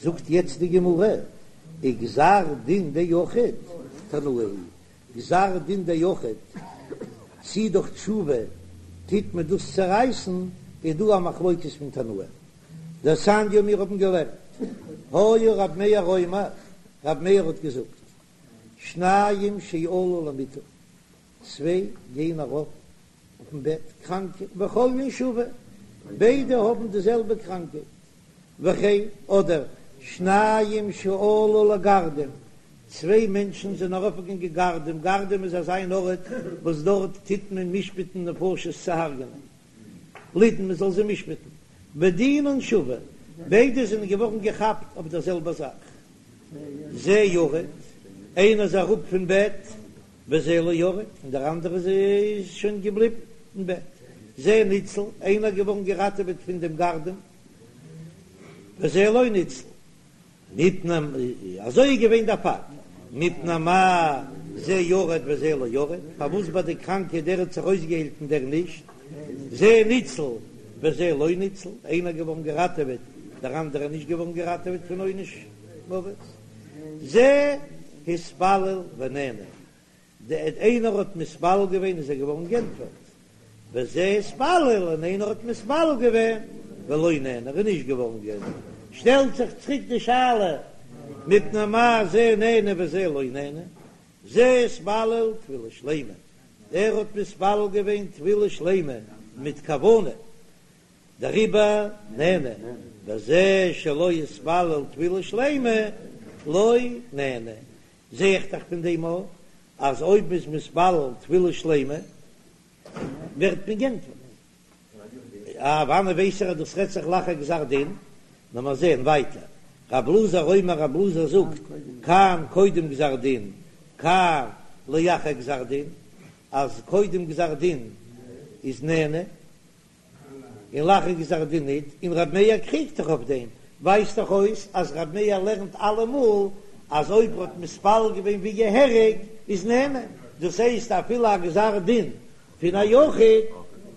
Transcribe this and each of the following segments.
זאגט יעצט די גמרא, וגזר דין דיחיד תנאי היא, גזר דין דיחיד, צי דורך תשובה טוט מען דאס צערייסן, איז דא א מחלוקת פון תנאים. דתניא מיר האבן געלערנט, היה רב מאיר אומר, רב מאיר האט געזאגט, שניים שעלו למיטה, צוויי גייען ארויף אויפן בעט קראנקע, וחליין שוה, ביידע האבן די זעלבע קראנקייט, וכן, אדער שניים שעלו לגרדום, צוויי מענטשן זענען ארויפגעגאנגען גרדום, גרדום איז אזא אן ארט וואס דארט טוט מען משפט'ן נפשות צו הרג'נען, לידון מען זאל זיי משפט'ן, ודינן שוה, ביידע זענען געווארן געכאפט אויף דער זעלבער זאך, זה ירד, איינער איז אראפ פון בעט, וזה לא ירד, און דער אנדערער איז שוין געבליבן אין בעט, זה ניצל, איינער איז געווארן געראטעוועט פון דעם גרדום, וזה לא ניצל, מפני, אזוי איז געווען דער פאקט, מפני מה זה ירד וזה לא ירד, פארוואס ביי די קראנקע דער האט זיך אויסגעהיילט און דער נישט, זה ניצל וזה לא ניצל, איינער געווארן געראטעוועט, דער אנדערער נישט געווארן געראטעוועט פון עונש מוות, זה התפלל ונענה, דער איינער האט מתפלל געווען איז ער געווארן גענטפערט, וזה התפלל און איינער האט מתפלל געווען ולא נענה ער איז נישט געווארן גענטפערט, שטעלט זיך צוריק די שאלה מפני מה זה נענה וזה לא נענה, זה התפלל תפילה שלימה, דער האט מתפלל געווען תפילה שלימה מיט כוונה, דעריבער נענה, וזה שלא התפלל תפילה שלימה לא נענה, זע איך דאך פון דעם אויך אז אויב מ'איז מתפלל תפילה שלימה ווערט מען גענטפערט. אה, וואנען ווייס איך אז דאס רעדט זיך לאחר גזר דין? לאמיר זען ווייטער. רב אלעזר אומר רב אלעזר זאגט, כאן קודם גזר דין, כאן לאחר גזר דין, אז קודם גזר דין איז נענה, און לאחר גזר דין ניט, און רב מאיר קריגט דאך אויף דעם, ווייזט דאך אויס אז רב מאיר לערנט אלעמאל אז אויב ר'האט מתפלל געווען ווי געהעריג איז נענה, דאס הייסט אפילו א גזר דין פון א יחיד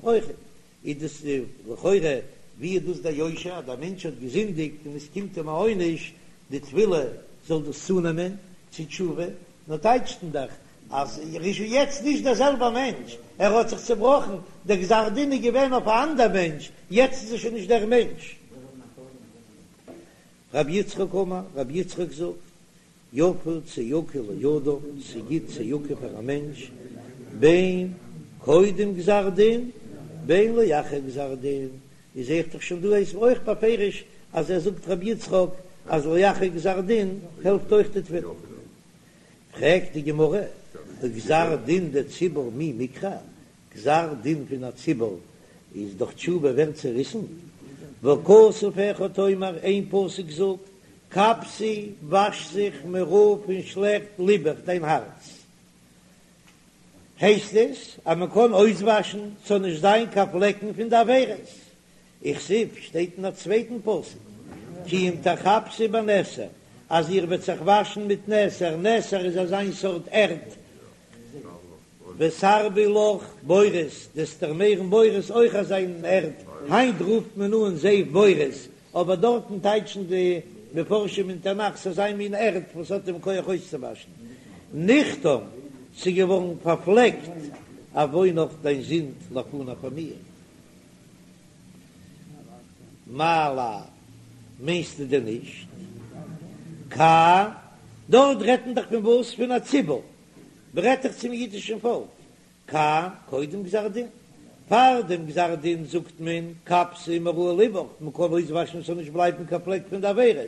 אויכעט. איז דאס לכאורה ווי איז דאס דער יושר אז דער מענטש האט געזינדיגט און עס קומט אים א עונש, די תפילה זאל דאס צונעמען צו תשובה, נאר טייטשט מען דאך אז ער איז שוין יעצט נישט דער זעלבער מענטש, ער האט זיך צעבראכן, דער גזר דין איז געווען אויף א אנדער מענטש, יעצט איז ער שוין נישט דער מענטש. רבי יצחק אמר, רבי יצחק זאגט, יפה צעקה לאדם, ס'גוט צעקה פאר א מענטש, בין קודם גזר דין בין לאחר גזר דין, איז זעה איך דאך שוין דא איז אויך בפירוש אז ער זאגט רבי יצחק אז לאחר גזר דין העלפט אויך די תפילה. פרעגט די גמרא, וגזר דין דציבור מי מיקרע, גזר דין פון א ציבור איז דורך תשובה ווערט צעריסן, והא כתוב אחד אומר, איין פסוק זאגט, כבסי וואש זיך מרעה פון שלעכט לבך דיין הארץ, הייסט עס אז מען קען אויסוואשן ס'זאל נישט זיין קיין פלעקן פון די עבירות, וכתיב שטייט אין א צווייטן פסוק, כי אם תכבסי בנתר, אז איר וועט זיך וואשן מיט נתר, נתר איז אזיין סארט ערד, ותרבי לך בורית, וועסט דיר מערן בורית אויך אזיין ערד, היינט רופט מען אן זייף בורית, אבער דארטן טייטשן די מפרשים אין תנך ס'איז אזיין מין ערד וואס האט דעם כח אויסצואוואשן. נכתם, ס'איז געווארן פארפלעקט, עונך דיין זינד לפני פאר מיר. מאי לאו, מיינסטו דען נישט? כאן, דארט רעדט מען דאך פון וואס? פון א ציבור, מ'רעדט דאך צום אידישן פאלק, כאן קודם גזר דין, פאר דעם גזר דין זאגט מען כבסי מרעה לבך, מען קען אויסוואשן ס'זאל נישט בלייבן קיין פלעק פון די עבירות,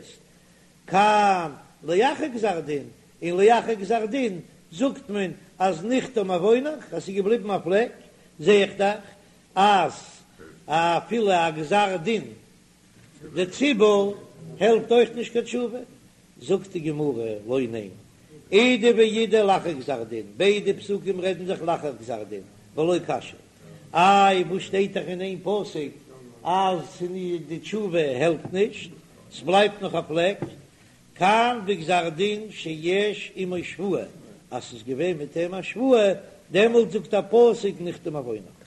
כאן לאחר גזר דין, און לאחר גזר דין זאגט מען אז נכתם עונך, אז ס'איז געבליבן א פלעק, זע איך דאך אז אפילו א גזר דין דציבור העלפט אויך נישט קיין תשובה, זאגט די גמרא לא ניין, אידי ואידי לאחר גזר דין, ביידע פסוקים רעדן זיך לאחר גזר דין, ולא קשיא, איי וואס שטייט דאך אין איין פסוק אז די תשובה העלפט נישט, ס'בלייבט נאך א פלעק, כאן בגזר דין שיש עמו שבועה, אז ס'איז געווען מיט אים א שבועה, דעמאלט זאגט א פסוק נכתם עונך.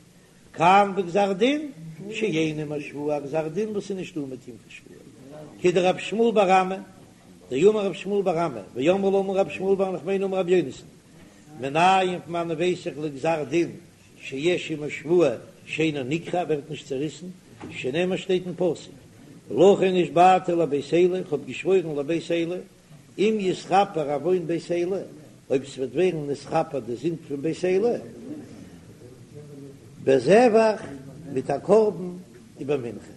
כאן בגזר דין שאין עמו שבועה, א גזר דין וואס איז נישטא מיט אים קיין שבועה. כדרב שמואל בר אמי, דאמר רב שמואל בר אמי, ואמרי לה אמר רב שמואל בר נחמני אמר רבי יונתן, מנין פון וואנען ווייס איך לגזר דין שיש עמו שבועה שאינו נקרע ווערט נישט צעריסן, שנאמר שטייט אין פסוק, לכן נשבעתי לבית עלי, איך האב געשוואוירן לבית עלי, אם יתכפר עוון בית עלי, אויב ס'וועט ווערן נתכפר די זינד פון בית עלי, בזבח מיט א קרבן ובמנחה.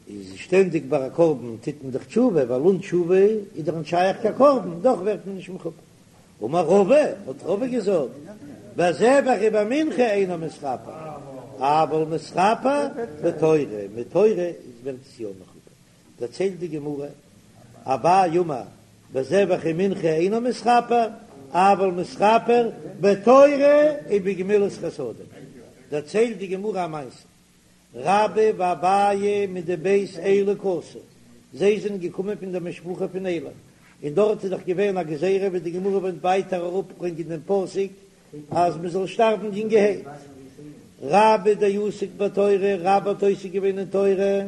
איז שטענדיג ביי א קרבן טוט מען דאך תשובה, ווייל אן תשובה איז דאך נישט שייך קיין קרבן, דאך ווערט מען נישט מכופר. אמר רבא, האט רבא געזאגט, בזבח ובמנחה אינו מתכפר, אבל מתכפר בתורה, מיט תורה ווערט עס יא מכופר. דערציילט די גמרא, אביי אמר, בזבח ומנחה אינו מתכפר, אבל מתכפר בתורה ובגמילות חסדים. דערציילט די גמרא א מעשה, רבה ואביי מדבית עלי קאתו, זיי זענען געקומען פון דער משפחה פון עלי, און דארט איז דאך געווען א גזירה ווי די גמרא וועט ווייטער אראפברענגען דעם פסוק אז מען זאל שטארבן יונגערהייט. רבה דעסק בתורה, רבה האט עוסק געווען אין תורה,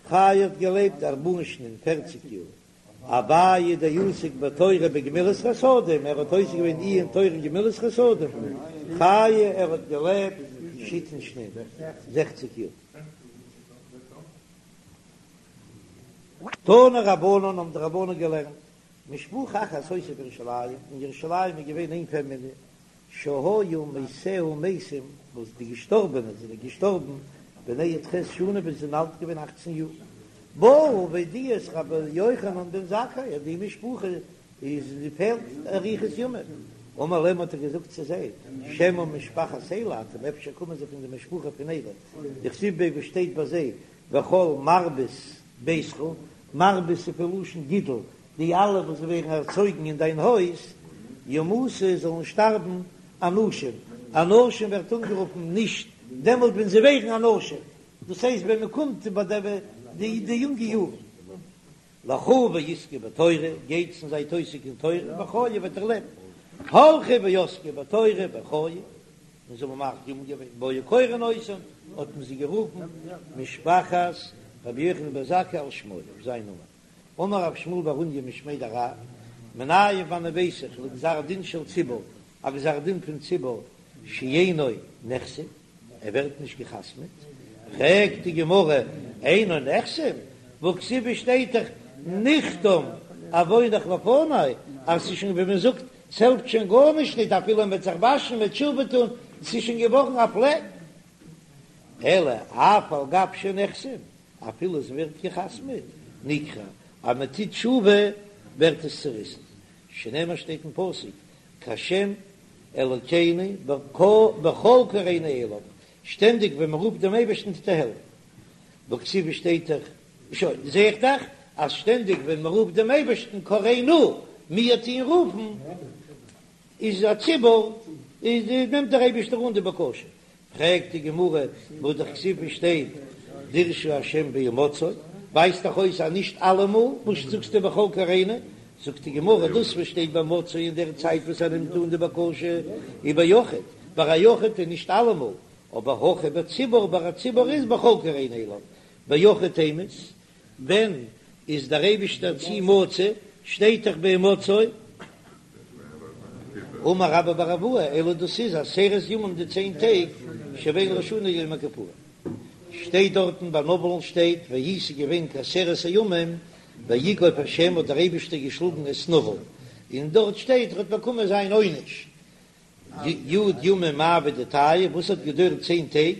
חי האט געלעבט ארבעין שנין, פערציג יאר. אביי דעסק בתורה בגמילות חסדים, ער האט עוסק געווען אי אין תורה און גמילות חסדים, חי ער האט געלעבט שיתין שנין, זעכציג יאר. תנו רבנן האבן די רבנן געלערנט, משפחה אחת היתה בירושלים, אין ירושלים איז געווען איין פעמיליע, שהיו מתיה מתים, וואס די געשטארבענע זענען געשטארבן בני י"ח שנה ווען זיי זענען אלט געווען אכצן יאר, באו והודיעו את רבי יוחנן בן זכאי אז די משפחה איז פעלט אריכות ימים, אמר להם האט ער געזאגט צו זיי, שמא ממשפחת עלי אתם, אפשר קומען זיי פון די משפחה פון עלי, דכתיב ביה וואס שטייט ביי זיי וכל מרבית ביתך, מרבית איז פון לשון גידול, די אלע וואס ווערן ערצויגן אין דיין הויז, ימותו זאלן שטארבן אנשים, אנשים ווערט אנגערופן נישט דעמאלט ווען זיי ווערן אנשים, דאס הייסט ווען מען קומט ביי די די יונגע יארן. לכו ועסקו בתורה, גייטס און זייט עוסק אין תורה, וחיו וועט איר לעבן. הלכו ועסקו בתורה וחיו, און זיי האבן מאריך ימים געווען, והיו קורין אותם, האט מען זיי גערופן משפחת רבי יוחנן בן זכאי על שמו, אויף זיין נאמען. אמר רב שמואל בר אוניא משמיה דרב, מנין פון וואנען ווייס איך לגזר דין של ציבור, א גזר דין פון ציבור שאינו נחתם, ער ווערט נישט געחתמעט, פרעגט די גמרא, אינו נחתם, והכתיב שטייט דאך נחתם עונך לפני, אז ס'איז שוין ווי מען זאגט, ס'העלפט שוין גארנישט ניט אפילו מען וועט זיך וואשן מיט תשובה טון, ס'איז שוין געווארן א פלעק, אלא אף על גב שנחתם, אפילו עס ווערט געחתמעט, נקרע, אז מען טוט תשובה ווערט עס צוריסן, שנאמר שטייט אין פסוק, כהשם אלוקינו בכל קראנו אליו, שטענדיג ווען מען רופט דעם אייבערשטן טוט ער העלפן, והכתיב שטייט דאך, שוין זע איך דאך אז שטענדיג ווען מען רופט דעם אייבערשטן קראנו, מיר טוען רופן, איז א ציבור, איז נעמט דער אייבערשטער אן די בקשה, פרעגט די גמרא, והא דכתיב שטייט דרשו השם בהמצאו, ווייזט דאך אויס אז נישט אלעמאל, וואס זאגסטו בכל קראנו? זאגט די גמרא, דאס וואס שטייט בהמצאו אין דער צייט וואס ער נעמט אן די בקשה איז ביחיד, ביי א יחיד איז נישט אלעמאל, אבער הכא בציבור, ביי א ציבור איז בכל קראנו אליו, ביחיד אימת, ווען איז דער אייבישטער צו מצוי, שטייט דאך בהמצאו. אמר רבה בר אבוה, אלו דאס איז עשרת ימים די צען טעג שבין ראש השנה ליום הכיפורים. שטייט דארטן ביי נבל'ן שטייט ויהי ס'איז געווען כעשרת הימים ויגוף השם האט דער אייבישטער געשלאגן את נבל, און דארט שטייט ער האט באקומען זיין עונש. י' ימים מאי עבידתייהו, וואס האט געדויערט צען טעג,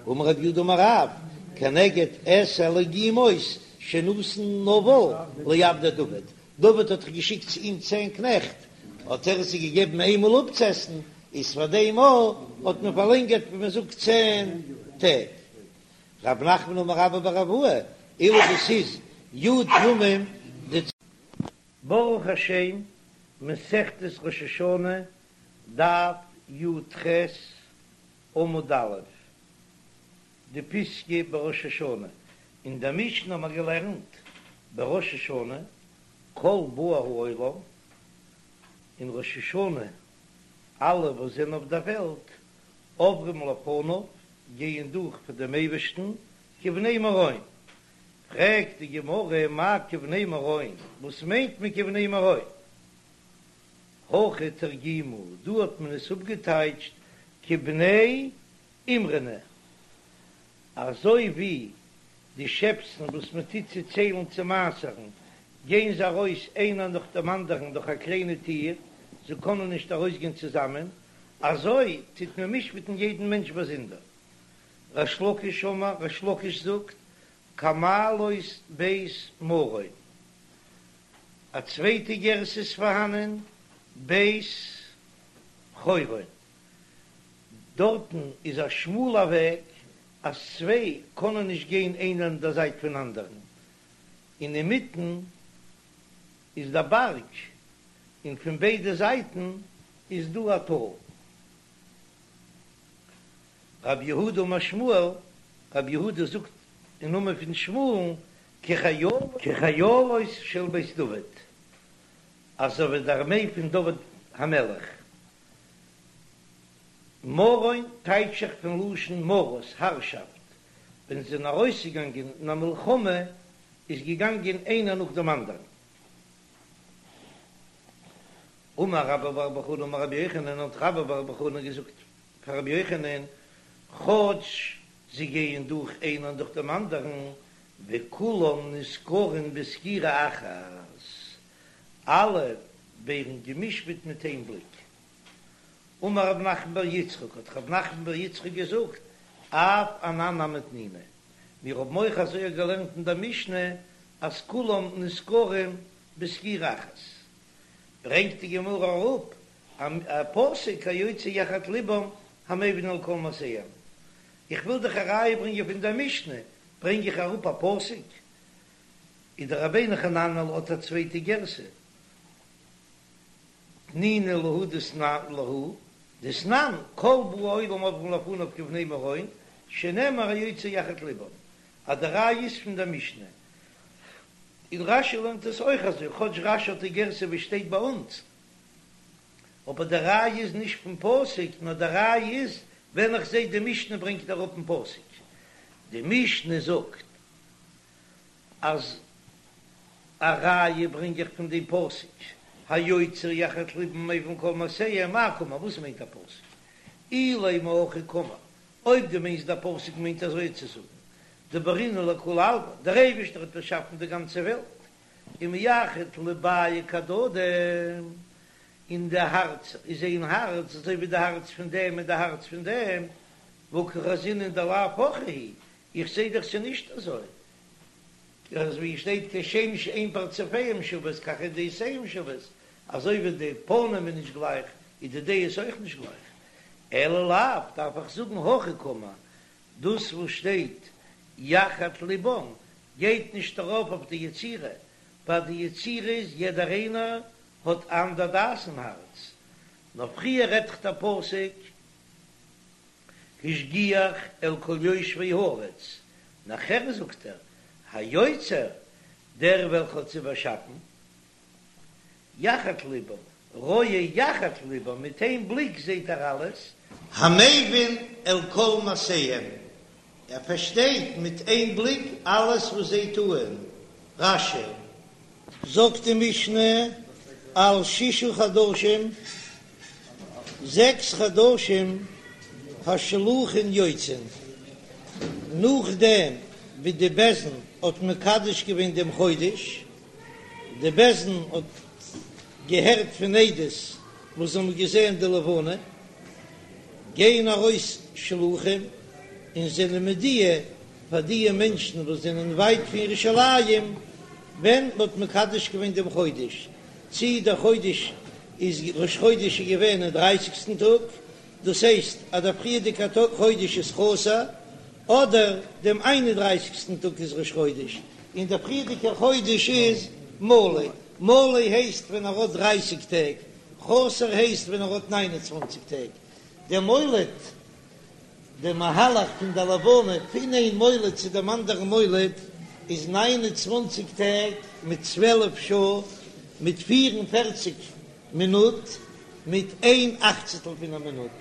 אמר רב יהודה אמר רב, כנגד עשר לגימות שנתן נבל לעבדי דוד, דוד האט דאך געשיקט צו אים צען קנעכט, האט ער זיי געגעבן איינמאל אפצועסן, איז פאר דעם האט מען פארלענגערט ווי מען זאגט צען טעג. רב נחמן אמר רבה בר אבוה, אלו דאס איז י' ימים די. ברוך השם, מסכת ראש השנה, דף י"ח, עמוד א', די פיסקא בראש השנה, אין דער משנה האבן מיר געלערנט בראש השנה כל באי העולם, אין ראש השנה אלע וואס זענען אויף דער וועלט עוברים לפניו. גייען דורך פאר דעם אייבערשטן כבני מרון. פרעגט די גמרא מאי כבני מרון, וואס מיינט מען כבני מרון? הכא תרגימו, דא האט מען עס אפגעטייטשט כבני אמרנא, אזוי ווי די שעפסן וואס מען טוט צוציילן צו מעשר'ן, גייען זיי ארויס איינער נאך דעם אנדערן דורך א קליינע טיר, זיי קענען נישט ארויסגיין צוזאמען, אזוי טוט מען משפט'ן יעדן מענטש באזונדער. ריש לקיש אמר, ריש לקיש זאגט, כמעלות בית מרון. א צווייטע גירסא איז פארהאנען, בית חורון. דארטן איז א שמאלע וועג אז צוויי קענען נישט גיין איינער אין דער זייט פון אנדערן, און אינמיטן איז דער בארג, און פון ביידע זייטן איז דא א טאל. רב יהודה אמר שמואל, רב יהודה זאגט אין נאמען פון שמואל'ן, כחיילות של בית דוד, אזוי ווי די ארמעי פון דוד המלך. מרון טייטש זיך פון לשון מרות, הערשאפט, ווען זיי זענען ארויסגעגאנגען אין א מלחמה איז געגאנגען איינער נאך דעם אנדערן. אמר רבה בר בר חנה אמר רבי יוחנן, האט רבה בר בר חנה געזאגט פאר רבי יוחנן, כאטש זיי גייען דורך איינער נאך דעם אנדערן, וכולן נסקרין בסקירה אחת, אלע ווערן גע'משפט מיט איין בליק. אמר רב נחמן בר יצחק, האט רב נחמן בר יצחק געזאגט, אף אנן נמי תנינא, מיר האבן אויך אזוי געלערנט אין דער משנה אז כולם נסקרים בסקירה אחת. ברענגט די גמרא אראפ א פסוק היוצר יחד לבם המבין אל כל מעשיהם. איך וויל דיך א ראיה ברענגען פון דער משנה, ברענג איך אראפ א פסוק, און דער רבינו חננאל האט א צווייטע גירסא. תנינא להא דתנן להא דתנן כל באי עולם עוברים לפניו כבני מרון שנאמר היוצר יחד לבם אז די ראיה איז פון דער משנה און רש"י לערנט עס אויך אזוי כאטש רש"י האט די גירסא ווי שטייט ביי אונז אבער די ראיה איז נישט פון פסוק נאר די ראיה איז ווען איך זעה די משנה ברענגט אראפ דעם פסוק די משנה זאגט אז א ראיה ברענג איך פון דעם פסוק, היוצר יחד לבם המבין אל כל מעשיהם, מאי קאמר, וואס מיינט א פסוק? אילימא הכי קאמר, אויב דו מיינסט דער פסוק מיינט אזוי צו זאגן, דברינהו לכולי עלמא, דער אייבערשטער האט באשאפן די גאנצע וועלט, ומייחד לבייהו כהדדי, און די הארץ איז איין הארץ, אזוי ווי די הארץ פון דעם און די הארץ פון דעם, והא קא חזינן דלאו הכי הוא, איך זעה דאך ס'איז נישט אזוי. אזוי ווי שטייט כשם שאין פרצופיהם שוות כך אין דעותיהם שוות, אזוי ווי די פנים איז נישט גלייך איז די דעות אויך נישט גלייך. אלא לאו, דארף איך זאגן הכי קאמר, דאס וואס שטייט יחד לבם גייט נישט ארויף אויף די יצירה, ווייל די יצירה איז יעדער איינער האט אנדער דעת אין הארץ, נאר פריער רעדט דאך דער פסוק השגיח אל כל יושבי הארץ, נאכער זאגט ער, היוצר, דער וועלכע האט זיי באשאפן, יחד לבם, רואה יחד לבם, מיט איין בליק זעט ער אלעס. המבין אל כל מעשיהם, ער פארשטייט מיט איין בליק אלעס וואס זיי טוען, רש"י. זאגט די משנה על שישה חדשים, זעקס חדשים השלוחין יוצאין, נאכדעם ווי די בית דין האט מקדש געווען דעם חודש, די בית דין האט געהערט פון עדות וואס האבן געזען די לבנה, גייען ארויס שלוחים און זענען מודיע פאר די מענטשן וואס זענען ווייט פון ירושלים ווען מ'האט מקדש געווען דעם חודש, צי דער חודש איז ראש חודש איז געווען אין דרייסיגסטן טאג, דאס הייסט אז דער פריערדיגער טאג חודש איז חסר, אדער דעם איין און דרייסיגסטן טאג איז ראש חודש און דער פריערדיגער חודש איז מלא, מלא הייסט ווען ער האט דרייסיג טעג, חסר הייסט ווען ער האט ניין און צוואנציג טעג, דער מולד. דער מהלך פון דער לבנה פון איין מולד צו דעם אנדערן מולד איז 29 טעג מיט 12 שעה מיט 44 מינוט מיט איין אכצנטל פון א מינוט.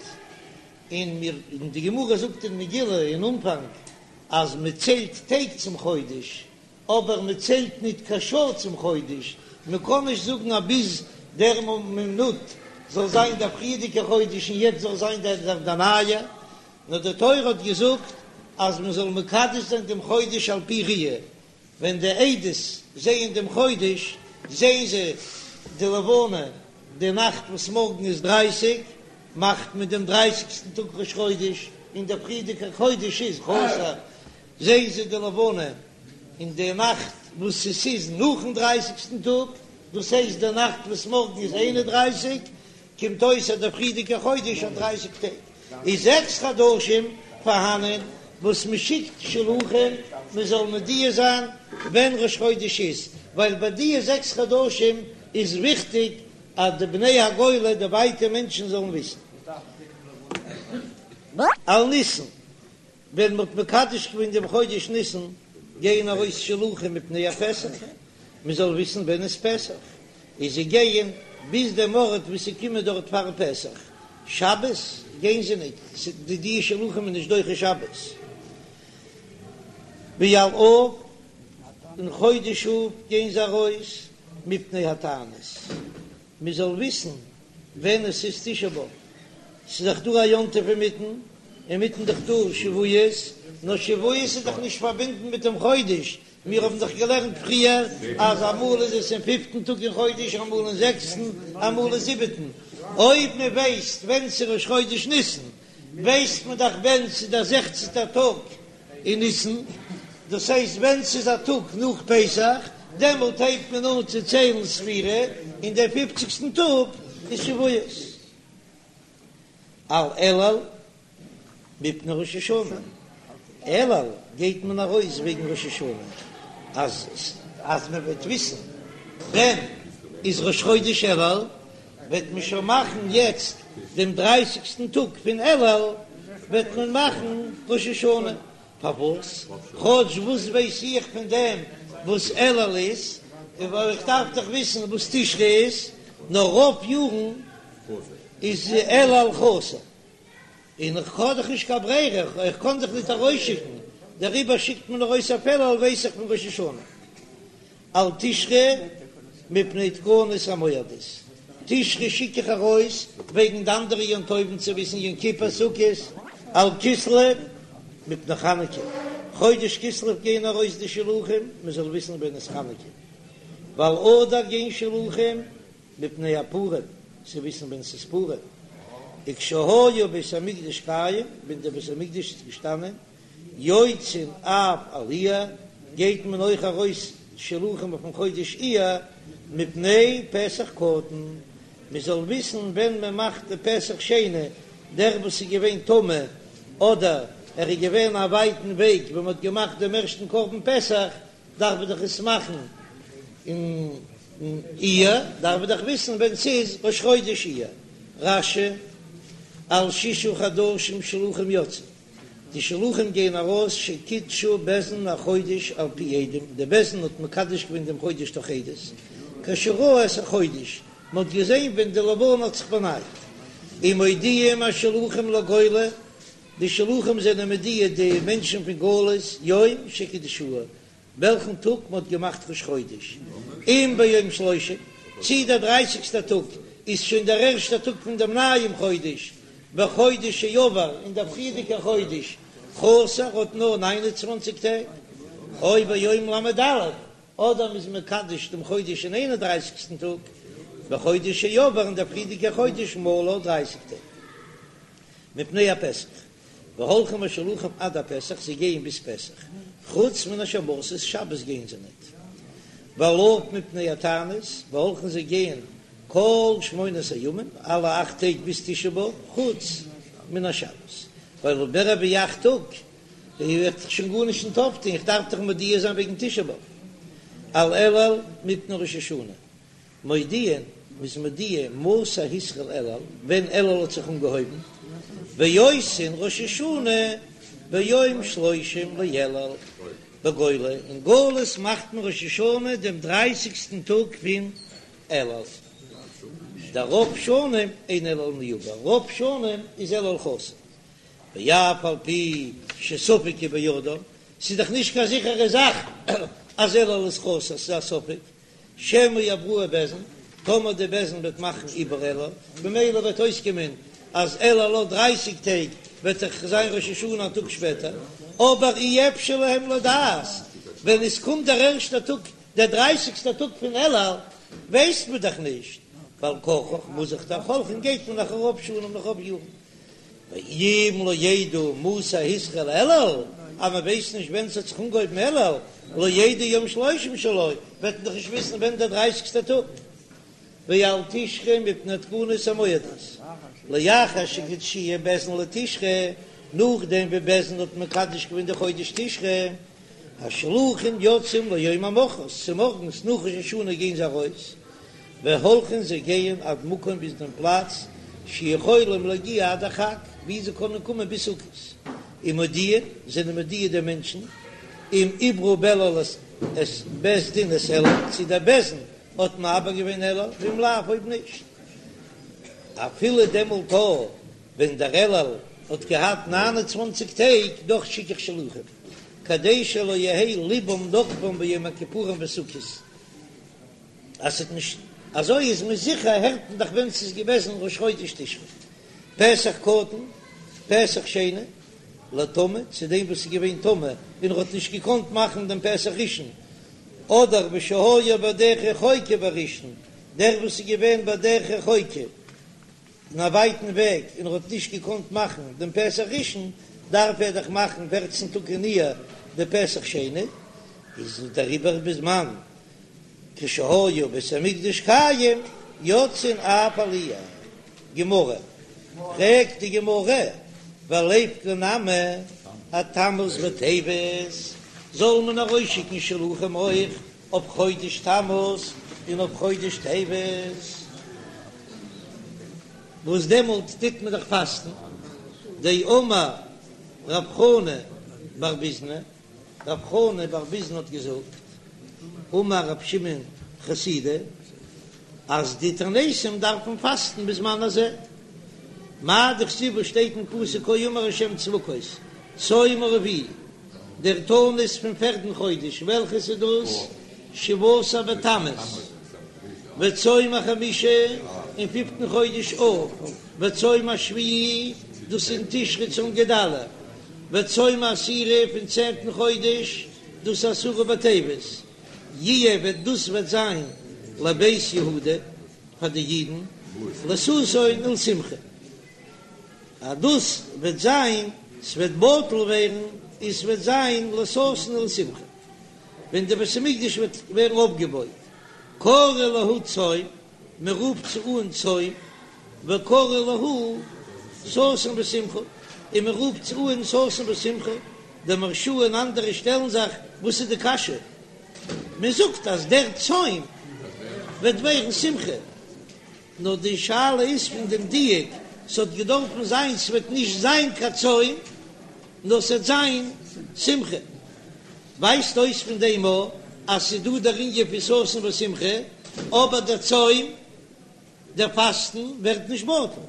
און מיר און די גמרא זאגט אין מגילה אין אנפאנג אז מען ציילט טעג צום חודש, אבער מען ציילט ניט קיין שעה צום חודש, מען קען נישט זאגן אז ביז דער מינוט זאל זיין דער פריערדיגער חודש און יעצט זאל זיין דער נייער, נאר די תורה האט געזאגט אז מען זאל מקדש זיין דעם חודש על פי ראיה, ווען די עדות זעען דעם חודש, זעען זיי די לבנה די נאכט וואס מארגן איז דרייסיג, מאכט מען דעם דרייסיגסטן טאג ראש חודש, און דער פריערדיגער חודש איז חסר, זעען זיי די לבנה אין די נאכט וואס עס איז נאכן דרייסיגסטן טאג, דאס הייסט די נאכט וואס מארגן איז איין און דרייסיג, קומט אויס אז דער פריערדיגער חודש האט דרייסיג טעג, איז זעקס חדשים פארהאנען וואס מען שיקט שלוחים מען זאל מודיע זיין ווען ראש חודש איז, ווייל ביי די זעקס חדשים איז וויכטיג אז די בני הגולה די ווייטע מענטשן זאלן וויסן. על ניסן, ווען מען האט מקדש געווען דעם חודש ניסן, גייען ארויס שלוחים מפני הפסח, מען זאל וויסן ווען איז פסח, און זיי גייען ביז דעם ארט וואו ס'קומען דארט פאר פסח, שבת גייען זיי ניט, די די שלוחים איז נישט דוחה שבת. ועל אב, אין חודש אב גייען זיי ארויס מפני התענית, מען זאל וויסן ווען עס איז תשעה באב, ס'איז דאך דא א יום טוב אינמיטן, אינמיטן דאך דא שבועות, נאר שבועות איז דאך נישט פארבינדן מיט דעם חודש, מיר האבן דאך געלערנט פריער אז אמאל איז עס אין פיפטן טאג אין חודש, אמאל אין זעקסטן, אמאל אין זיבעטן, אויב מען ווייסט ווען ס'איז ראש חודש ניסן, ווייסט מען דאך ווען ס'איז דער זעכצנטער טאג אין ניסן, דאס הייסט ווען ס'איז א טאג נאך פסח, דעמאלט הייבט מען אן צו ציילן ספירה, און דער פופציגסטן טאג איז שבועות. על אלול מפני ראש השנה, אלול גייט מען ארויס וועגן ראש השנה, אז אז מען וועט וויסן ווען איז ראש חודש אלול, וועט מען שוין מאכן יעצט דעם דרייסיגסטן טאג פון אלול וועט מען מאכן ראש השנה, פארוואס? כאטש וואס ווייס איך פון דעם וואס אלול איז, ווייל איך דארף דאך וויסן וואס תשרי איז, נאר רוב יארן איז אלול חסר, און איך האב דאך נישט קיין ברירה, איך קען דאך נישט ארויסשיקן, דעריבער שיקט מען ארויס אויף אלול ווייס איך פון ראש השנה. על תשרי מפני תקנת המועדות, תשרי שיק איך ארויס וועגן די אנדערע יום טובים צו וויסן יום כיפור סוכות, על כסלו מפני חנוכה, חודש כסלו גייען ארויס די שלוחים מען זאל וויסן ווען איז חנוכה, ועל אדר גייען שלוחים מפני הפורים צו וויסן ווען ס'איז פורים, וכשהיה בית המקדש קיים ווען דער בית המקדש איז געשטאנען יוצאין אף על אייר, גייט מען אויך ארויס שלוחים אויפן חודש אייר מפני פסח קטן, מען זאל וויסן ווען מען מאכט די פסח שני, דער וואס איז געווען טמא אדער ער איז געווען א ווייטן וועג ווען מען האט געמאכט דעם ערשטן קרבן פסח, דארף מען דאך עס מאכן אין אייר, דארף מען דאך וויסן ווען ס'איז ראש חודש אייר. רש"י, על ששה חדשים שלוחים יוצאין. די שלוחים גייען ארויס שקידשו בית דין החודש על פי עדים, די בית דין האט מקדש געווען דעם חודש דורך עדות, כשראו את החודש, מען האט געזען ווען די לבנה האט זיך באנייט, ומודיעים השלוחים לגולה, די שלוחים זענען מודיע די מענטשן פון גלות יום שקידשוה, וועלכן טאג מען האט געמאכט ראש חודש, אם ביום שלושים, צי דער דרייסיגסטער טאג איז שוין דער ערשטער טאג פון דעם נייעם חודש, וחודש שעבר, און דער פריערדיגער חודש חסר האט נאר ניין און צוואנציג טעג, או ביום ל"א, אדער מ'איז מקדש דעם חודש אין איין און דרייסיגסטן טאג, וחודש שעבר, און דער פריערדיגער חודש מלא דרייסיג טעג. מפני הפסח. והולכים השלוחים עד הפסח, זיי גייען ביז פסח, חוץ מן השבתות, שבת גייען זיי ניט, ועל אב מפני התענית, והולכים זיי גייען כל שמונת הימים, אלע אכט טעג ביז תשעה באב, חוץ מן השבת, ווייל מער ווי אכט טאג וועט זיך שוין גארנישט ניט אויפטון, איך דארף דאך מודיע זיין וועגן תשעה באב, על אלול מפני ראש השנה, מודיעין, מ'איז מודיע מתי התחיל אלול, ווען אלול האט זיך אנגעהויבן, ועושין ראש השנה ביום שלושים לאלול בגולה, אין גלות מאכט מען ראש השנה דעם דרייסיגסטן טאג פון אלול, דרוב שנים אין אלול מעובר, רוב שנים איז אלול חסר. ואף על פי שספק הוא בידם, ס'איז דאך נישט קיין זיכערע זאך אז אלול איז חסר, ס'איז א ספק, שמא יעברוהו בית דין, טאמער די בית דין וועט מאכן עיבור אלול, במילא וועט אויסקומען אז אלול האט דרייסיג טעג, וועט דאך זיין ראש השנה א טאג שפעטער, אבער אי אפשר להם לדעת, ווען עס קומט דער ערשטער טאג, דער דרייסיגסטער טאג פון אלול, ווייסט מען דאך נישט, בעל כרחך מוז איך דאך הולכין גייט מען נאך רוב שנים נאך רוב יארן. ואם לא ידעו מתי התחיל אלול, אז מען ווייסט נישט ווען ס'האט זיך אנגעהויבן אלול, לא ידעו יום שלושים שלו, וועט מען דאך נישט וויסן ווען דער דרייסיגסטער טאג. ועל תשרי מפני תקנת המועדות, לאחר שקידשוהו בית דין לתשרי, נאכדעם ווי בית דין האט מקדש געווען די חודש תשרי, השלוחים יוצאים ליום המחרת, צומארגנס נאך ראש השנה גייען זיי ארויס, והולכין זיי גייען עד מקום ביז דעם פלאץ שיכולים להגיע עד החג, ווי זיי קענען קומען ביז סוכות, ומודיעין זענען מודיע די מענטשן אם עיברו באלול את בית דין את אלול, צו דער בית דין האט מעבר געווען אלול, ואם לאו אויב נישט אפילו דעמאלט אויך ווען דער אלול האט געהאט 29 טעג, דאך שיק איך שלוחים כדי שלא יהא לבם נוקפם ביום הכיפורים וסוכות. אז ס'האט נישט אזוי איז מען זיכער הערט מען דאך ווען ס'איז געוועזן ראש חודש תשרי פסח קטן פסח שני לטמא צו דעם וואס איז געווען טמא און ער האט נישט געקאנט מאכן דעם פסח ראשון אדער ושהיה בדרך רחוקה בראשון דער וואס איז געווען בדרך רחוקה אין א ווייטן וועג און ער האט נישט געקאנט מאכן דעם פסח ראשון, דארף ער דאך מאכן פערצן טאג אין אייר די פסח שני, איז דעריבער בזמן כשהיה בית המקדש קיים יוצאין אף על אייר. גמרא, פרעגט די גמרא, וליפקו נמי אתמוז וטבת, זאל מען ארויסשיקן שלוחים אויך אויף חודש תמוז און אויף חודש טבת, וואס דעמאלט טוט מען דאך פאסטן, דאמר רב חנא בר ביזנא, רב חנא בר ביזנא האט געזאגט, אמר רב שמעון חסידא, אז די תעניתים דארפן פאסטן בזמן הזה, מאי דכתיב וואס שטייט אין פסוק כה אמר ה' צבקות צום הרביעי, דער תענית פון פערדן חודש, וועלכעס איז דאס? שבעה עשר בתמוז, וצום החמישי אין פיפטן חודש אב, וצום השביעי, דאס אין תשרי צום גדליה, וצום העשירי פון צענטן חודש, דאס עשרה בטבת, יהיה וועט דאס וועט זיין לבית יהודה פאר די אידן לששון ולשמחה. אז דאס וועט זיין, ס'וועט בטל ווערן, און ס'וועט זיין לששון ולשמחה, ווען דער בית המקדש וועט ווערן אויפגעבויט, קרי להו צום, מען רופט צו אן צום, וקרי להו ששון ושמחה, און מען רופט צו אן ששון ושמחה, דער מהרש"א און אנדערע שטעלן זיך, וואס איז די קשיא? מען זאגט אז דער צום וועט ווערן שמחה. נאר די שאלה איז פון דעם דיוק, ס'האט געדארפן זיין ס'וועט נישט זיין קיין צום, נאר ס'וועט זיין שמחה. ווייזט אויס פון דעם א אז ס'איז דא דער ענין פון ששון ושמחה, אבער דער צום, דער פאסטן, ווערט נישט בטל.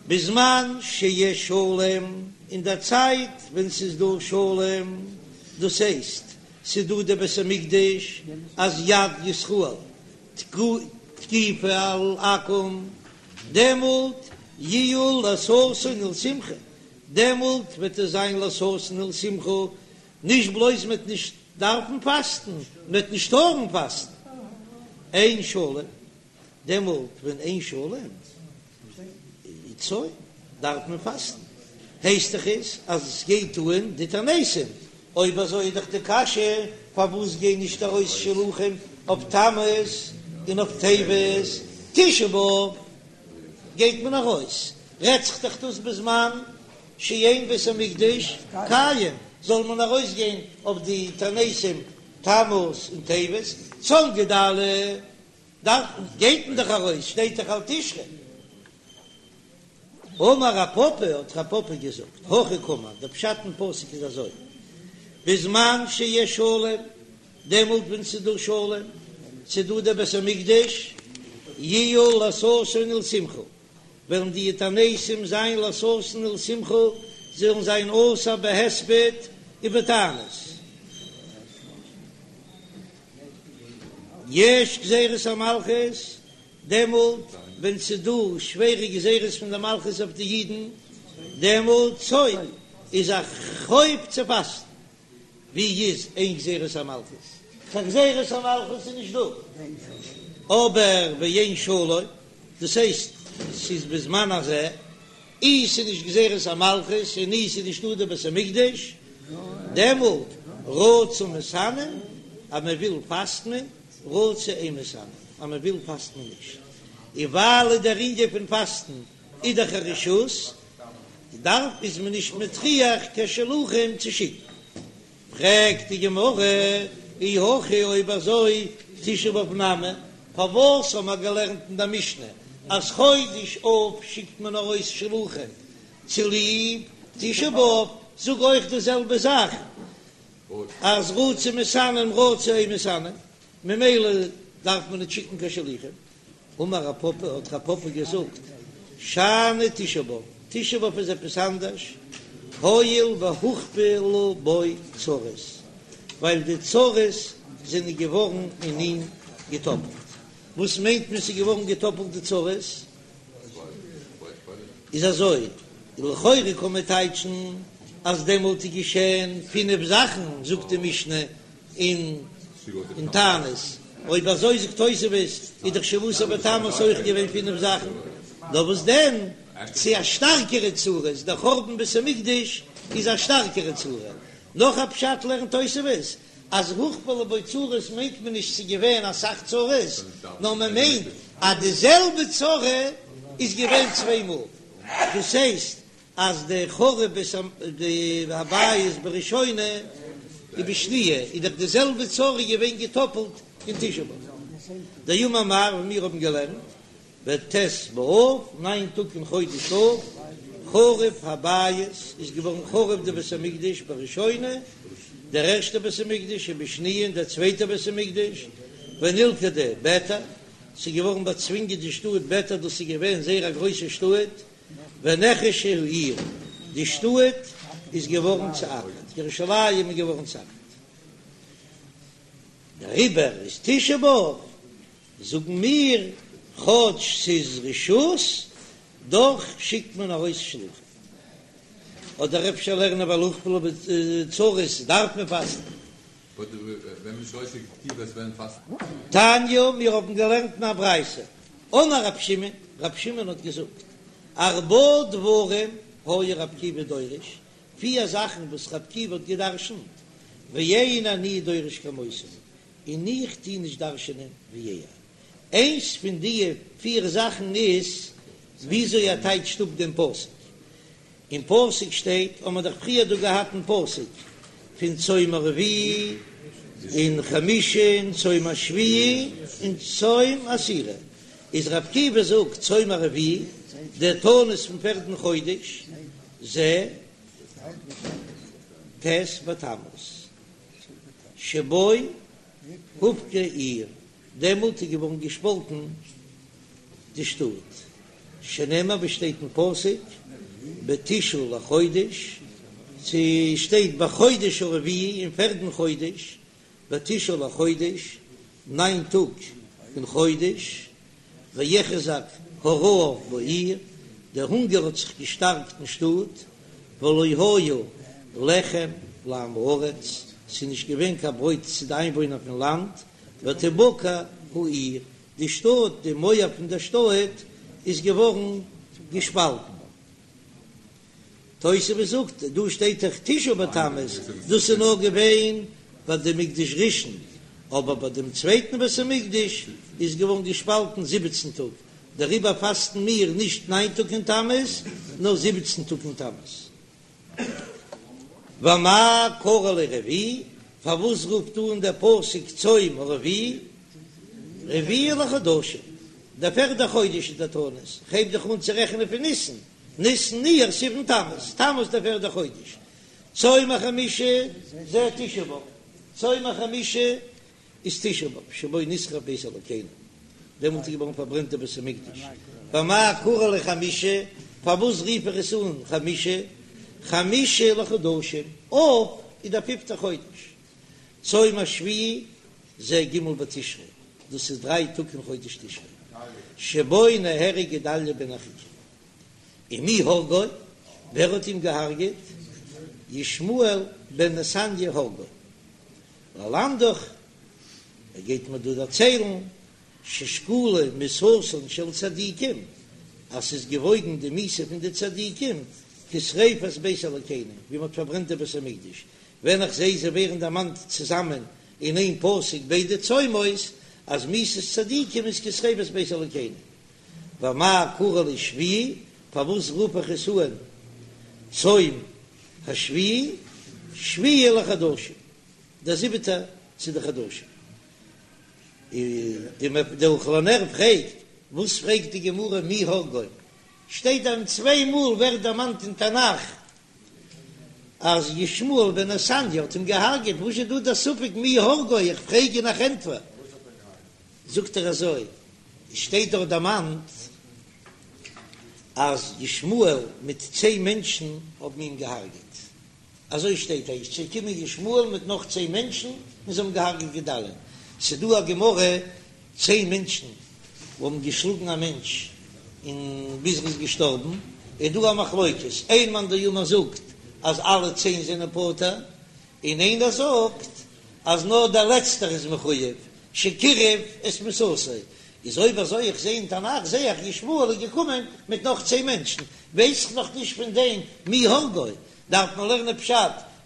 בזמן שיש שלום, אין דער צייט ווען ס'איז דא שלום, דאס הייסט ס'איז דא דער בית המקדש, אז יד ישראל תקיפה על עכו"ם, דעמאלט יהיו לששון ולשמחה, דעמאלט וועט עס זיין לששון ולשמחה, נישט בלויז מ'וועט נישט דארפן פאסטן, מ'וועט נישט טארן פאסטן, אין שלום, דעמאלט ווען אין שלום איז צום, דארף מען פאסטן, הייסט דאך עס אז עס גייט אן די תעניתים, אויב אזוי איז דאך די קשיא פארוואס גייען נישט ארויס שלוחים אויף תמוז און אויף טבת, תשעה באב גייט מען ארויס, רעדט זיך דאך דאס בזמן שאין בית המקדש קיים, זאל מען ארויס גיין אויף די תעניתים תמוז און טבת, צום גדלי' דארף גייט מען דאך ארויס, שטייט דאך על תשרי. אמר רב פפא, האט רב פפא געזאגט, הכי קאמר, דער פשט אין פסוק איז אזוי, בזמן שיש שלום, דעמאלט ווען ס'איז דא שלום, ס'איז דא דער בית המקדש, יהיו לששון ולשמחה. וועלן די תעניתים זיין לששון ולשמחה, זיי וועלן זיין אסור בהספד ובתענית. יש גזירת המלכות, דעמאלט ווען ס'איז דא שווערע גזירות פון די מלכות אויף די אידן, דעמאלט צום איז א חוב צו פאסטן. ווי איז אין גזירת המלכות? קיין גזירת המלכות איז נישט דא, אבער ואין שלום, דאס הייסט ס'איז בזמן הזה, אי ס'איז נישט גזירת המלכות און אי ס'איז נישטא די בית המקדש, דעמאלט רצו מתענין, אז מען וויל פאסט מען, רצו אין מתענין, אז מען וויל פאסט מען נישט, און ווייל דער ענין פון פאסטן איז דאך א רשות, דארף איז מען נישט מטריח קיין שלוחים צו שיקן. פרעגט די גמרא, אי הכי אויב אזוי תשעה באב נמי, פארוואס האבן מיר געלערנט אין דער משנה אז חודש אב שיקט מען ארויס שלוחים צוליב תשעה באב, זאג אויך די זעלבע זאך אז רצו מתענין רצו אין מתענין, ממילא דארף מען נישט שיקן קיין שלוחים. אמר רב פפא, האט רב פפא געזאגט, שאני תשעה באב, תשעה באב איז עפעס אנדערש, הואיל והוכפלו בו צרות, ווייל די צרות זענען געווארן אין אים געטאפלט. וואס מיינט מען ס'איז געווארן געטאפלט די צרות? איז אזוי, לכאורה קען מען טייטשן אז דעמאלט איז געשען פינף זאכן, זאגט די משנה, אין אין תענית, אויב אזוי זאגט תוספות איז דאך שבעה עשר בתמוז אויך געווען פינף זאכן, נאר וואס דען צו א שטארקערע צרה איז דער חורבן בית המקדש איז א שטארקערע צרה, נאך א פשט לערנט תוספות אז הוכפלו בו צרות מיינט מען נישט ס'איז געווען אסאך צרות, נאר מען מיינט אז די זעלבע צרה איז געווען צוויי מאל, דאס הייסט אז די חרוב בית הבית בראשונה ובשניה איז דאך די זעלבע צרה געווען געטאפלט אין תשעה באב. דאמר מר ווי מיר האבן געלערנט בט' באב, ניין טאג אין חודש אב, חרב הבית איז געווארן חרוב די בית המקדש בראשונה, דער ערשטער בית המקדש, ובשניה און דער צווייטער בית המקדש, ונלכדה ביתר, ס'איז געווארן באצווינגען די שטאט ביתר, דאס איז געווען זייער א גרויסע שטאט, ונחרשה העיר, די שטאט איז געווארן צעאקערט, ירושלים איז געווארן צעאקערט. דעריבער איז תשעה באב, זאגן מיר, כאטש ס'איז רשות, דאך שיקט מען ארויס שלוחים. אדער אפשר לערנען ווייל הוכפלו בו צרות דארף מען פאסטן. תניא, מיר האבן געלערנט אין א ברייתא, אמר רב שמעון, רב שמעון האט געזאגט, ארבעה דברים היה רב עקיבא דורש, פיר זאכן וואס רב עקיבא האט געדרשנט, ואין אני דורש כמותו, און איך טו נישט דרשנען ווי ער. איינס פון די פיר זאכן איז וויאזוי ער טייטשט אפ דעם פסוק. אין פסוק שטייט, האבן מיר דאך פריער דא געהאט אין פסוק פון צום הרביעי און חמישי און צום השביעי און צום העשירי, איז רב עקיבא זאגט צום הרביעי, דער תענית פון פערדן חודש, זה ט' בתמוז, שבו הובקעה העיר, דעמאלט איז געווארן געשפאלטן די שטאט, שנאמר ווי שטייט אין פסוק בתשעה לחודש, ס'שטייט בחודש הרביעי אין פערדן חודש, בתשעה לחודש, ניין טאג פון חודש, ויחזק הרעב בעיר, דער הונגער האט זיך געשטארקט אין שטאט, ולא היה לחם לעם הארץ, ס'איז נישט געווען קיין ברויט צו די איינוואוינער פון לאנד, ותבקע העיר, די שטאט, די מויער פון דער שטאט איז געווארן געשפאלטן. תוספות זאגט, דא שטייט דאך תשעה בתמוז, דאס איז נאר געווען ביי די מקדש ראשון, אבער ביי דעם צווייטן בית המקדש איז געווארן געשפאלטן זיבעצן טאג, דעריבער פאסטן מיר נישט ניין טאג אין תמוז, נאר זיבעצן טאג אין תמוז. ואמאי קרי ליה רביעי, פארוואס רופט אן דער פסוק צום הרביעי רביעי לחדשים, דער פערדע חודש איז דער תענית, כ'הייב דאך אן צו רעכענען פון ניסן, ניסן אייר סיוון תמוז, תמוז דער פערדע חודש, צום החמישי זה תשעה באב, צום החמישי איז תשעה באב, שבו נשרף בית אלוקינו. דעמאלט איז געווארן פארברענט דער בית המקדש. ואמאי קרי ליה חמישי, פארוואס רוף איך עס אן חמישי? חמישי לחדשים, אב איז דער פיפטער חודש. צום השביעי זה ג' בתשרי, דאס איז דריי טאג אין חודש תשרי, שבו נהרג גדליה בן אחיקם. ומי הרגו? ווער האט אים געהארגעט? ישמעאל בן נתניה הרגו. ללמדך, ער גייט מיר דא דערציילן, ששקולה מיתתן של צדיקים, אז ס'איז געוואויגן די מיתה פון די צדיקים, כשריפת בית אלוקינו, ווי מ'האט פארברענט די בית המקדש, ווען איך זע זיי ווערן דערמאנט צוזאמען אין איין פסוק ביידע צומות, אז מיתת צדיקים איז כשריפת בית אלוקינו. ואמאי קרי ליה שביעי, פארוואס רוף איך עס אן צום השביעי, שביעי לחדשים, דער זיבעטער צו די חדשים. די ערוך לנר פרעגט, וואס פרעגט די גמרא מי הרגו? שטייט דאן צוויי מאל ווערט דערמאנט אין תנך אז ישמעאל בן נתניה האט אים געהארגעט, וואס איז דא דער ספק מי הרגו, איך פרעג און איך ענטפער, זאגט ער אזוי, עס שטייט דארט דערמאנט אז ישמעאל מיט צען מענטשן האבן אים געהארגעט, אזוי שטייט אז ס'איז געקומען ישמעאל מיט נאך צען מענטשן און זיי האבן געהארגעט גדליה'ן, ס'איז דא א גמרא צען מענטשן האבן געשלאגן א מענטש און ביז ער איז געשטארבן, איז דא א מחלוקת, איין מאן דאמר זאגט אז אלע צען זענען פטור, און איינער זאגט אז נאר דער לעצטער איז מחויב, שקירב את מיתתו, איז אויב אזוי איך זע אין תנך זע איך ישמעאל איז געקומען מיט נאך צען מענטשן, ווייס איך נאך נישט פון דעם מי הרגו, דארף מען לערנען פשט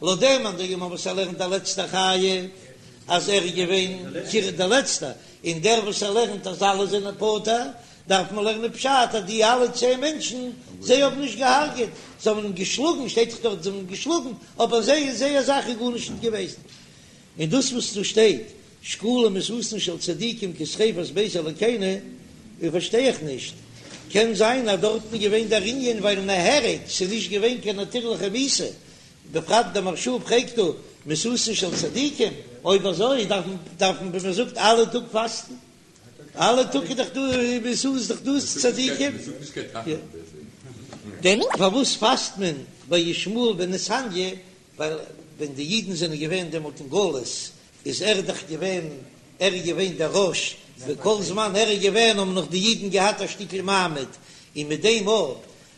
לויט דעם מאן דאמר וואס ער לערנט דער לעצטער חייב אז ער איז געווען קירב דער לעצטער, און דער וואס ער לערנט אז אלע זענען פטור דארף מען לערנען פשט אז די אלע צען מענטשן זיי האבן נישט געהארגעט, זיי האבן אים געשלאגן, שטייט דאך דארט זיי האבן אים געשלאגן, אבער זיי אין זייער זאך איז גארנישט נישט געוועזן. און דאס וואס דא שטייט שקולה מיתתן של צדיקים כשריפת בית אלוקינו, איך פארשטיי איך נישט, קען זיין אז דארטן איז געווען דער ענין ווייל נהרג, ס'איז נישט געווען קיין נאטירליכע מיתה, בפרט דער מהרש"א פרעגט דא מיתתן של צדיקים, אויב אזוי דארף דארף מען ווי מ'זאגט אלע טאג פאסטן, אלע טאג איז דאך דא מיתה איז דאך דא צדיקים. דען פארוואס פאסט מען ביי ישמעאל בן נתניה ווייל ווען די אידן זענען געווען דעמאלט אין גלות איז ער דאך געווען, ער איז געווען דער ראש, וכל זמן ער איז געווען האבן נאך די אידן געהאט א שטיקל מעמד, און מיט דעם מאל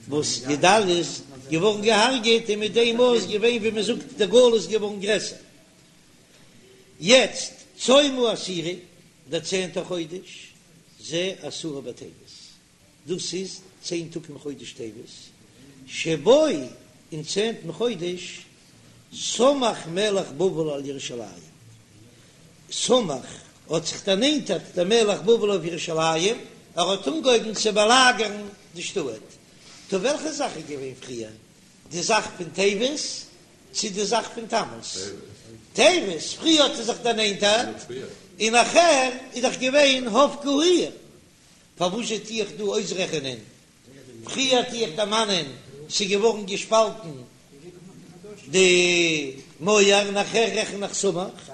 וואס גדליה איז געווארן געהארגעט, און מיט דעם מאל איז געווען ווי מען זאגט די גלות געווארן גרעסער. יעצט צום העשירי, דער צענטער חודש, זה עשרה בטבת. דאס איז צען טאג אין חודש טבת, שבו אין צענטן חודש סמך מלך בבל על ירושלים, סמך האט זיך דערנענטערט דער מלך בבל אויף ירושלים, ער האט אנגעהויבן צו באלאגערן די שטאט, טא וועלכע זאך איז געווען פריער, די זאך פון טבת צו די זאך פון תמוז? טבת, פריער האט ער זיך דערנענטערט, און נאכער איז דאך געווען הובקעה העיר. פארוואס זשע טו איך דא אויסרעכענען? פריער טו איך דערמאנען ס'איז געווארן געשפאלטן די מויער, נאכער רעכן איך סמך.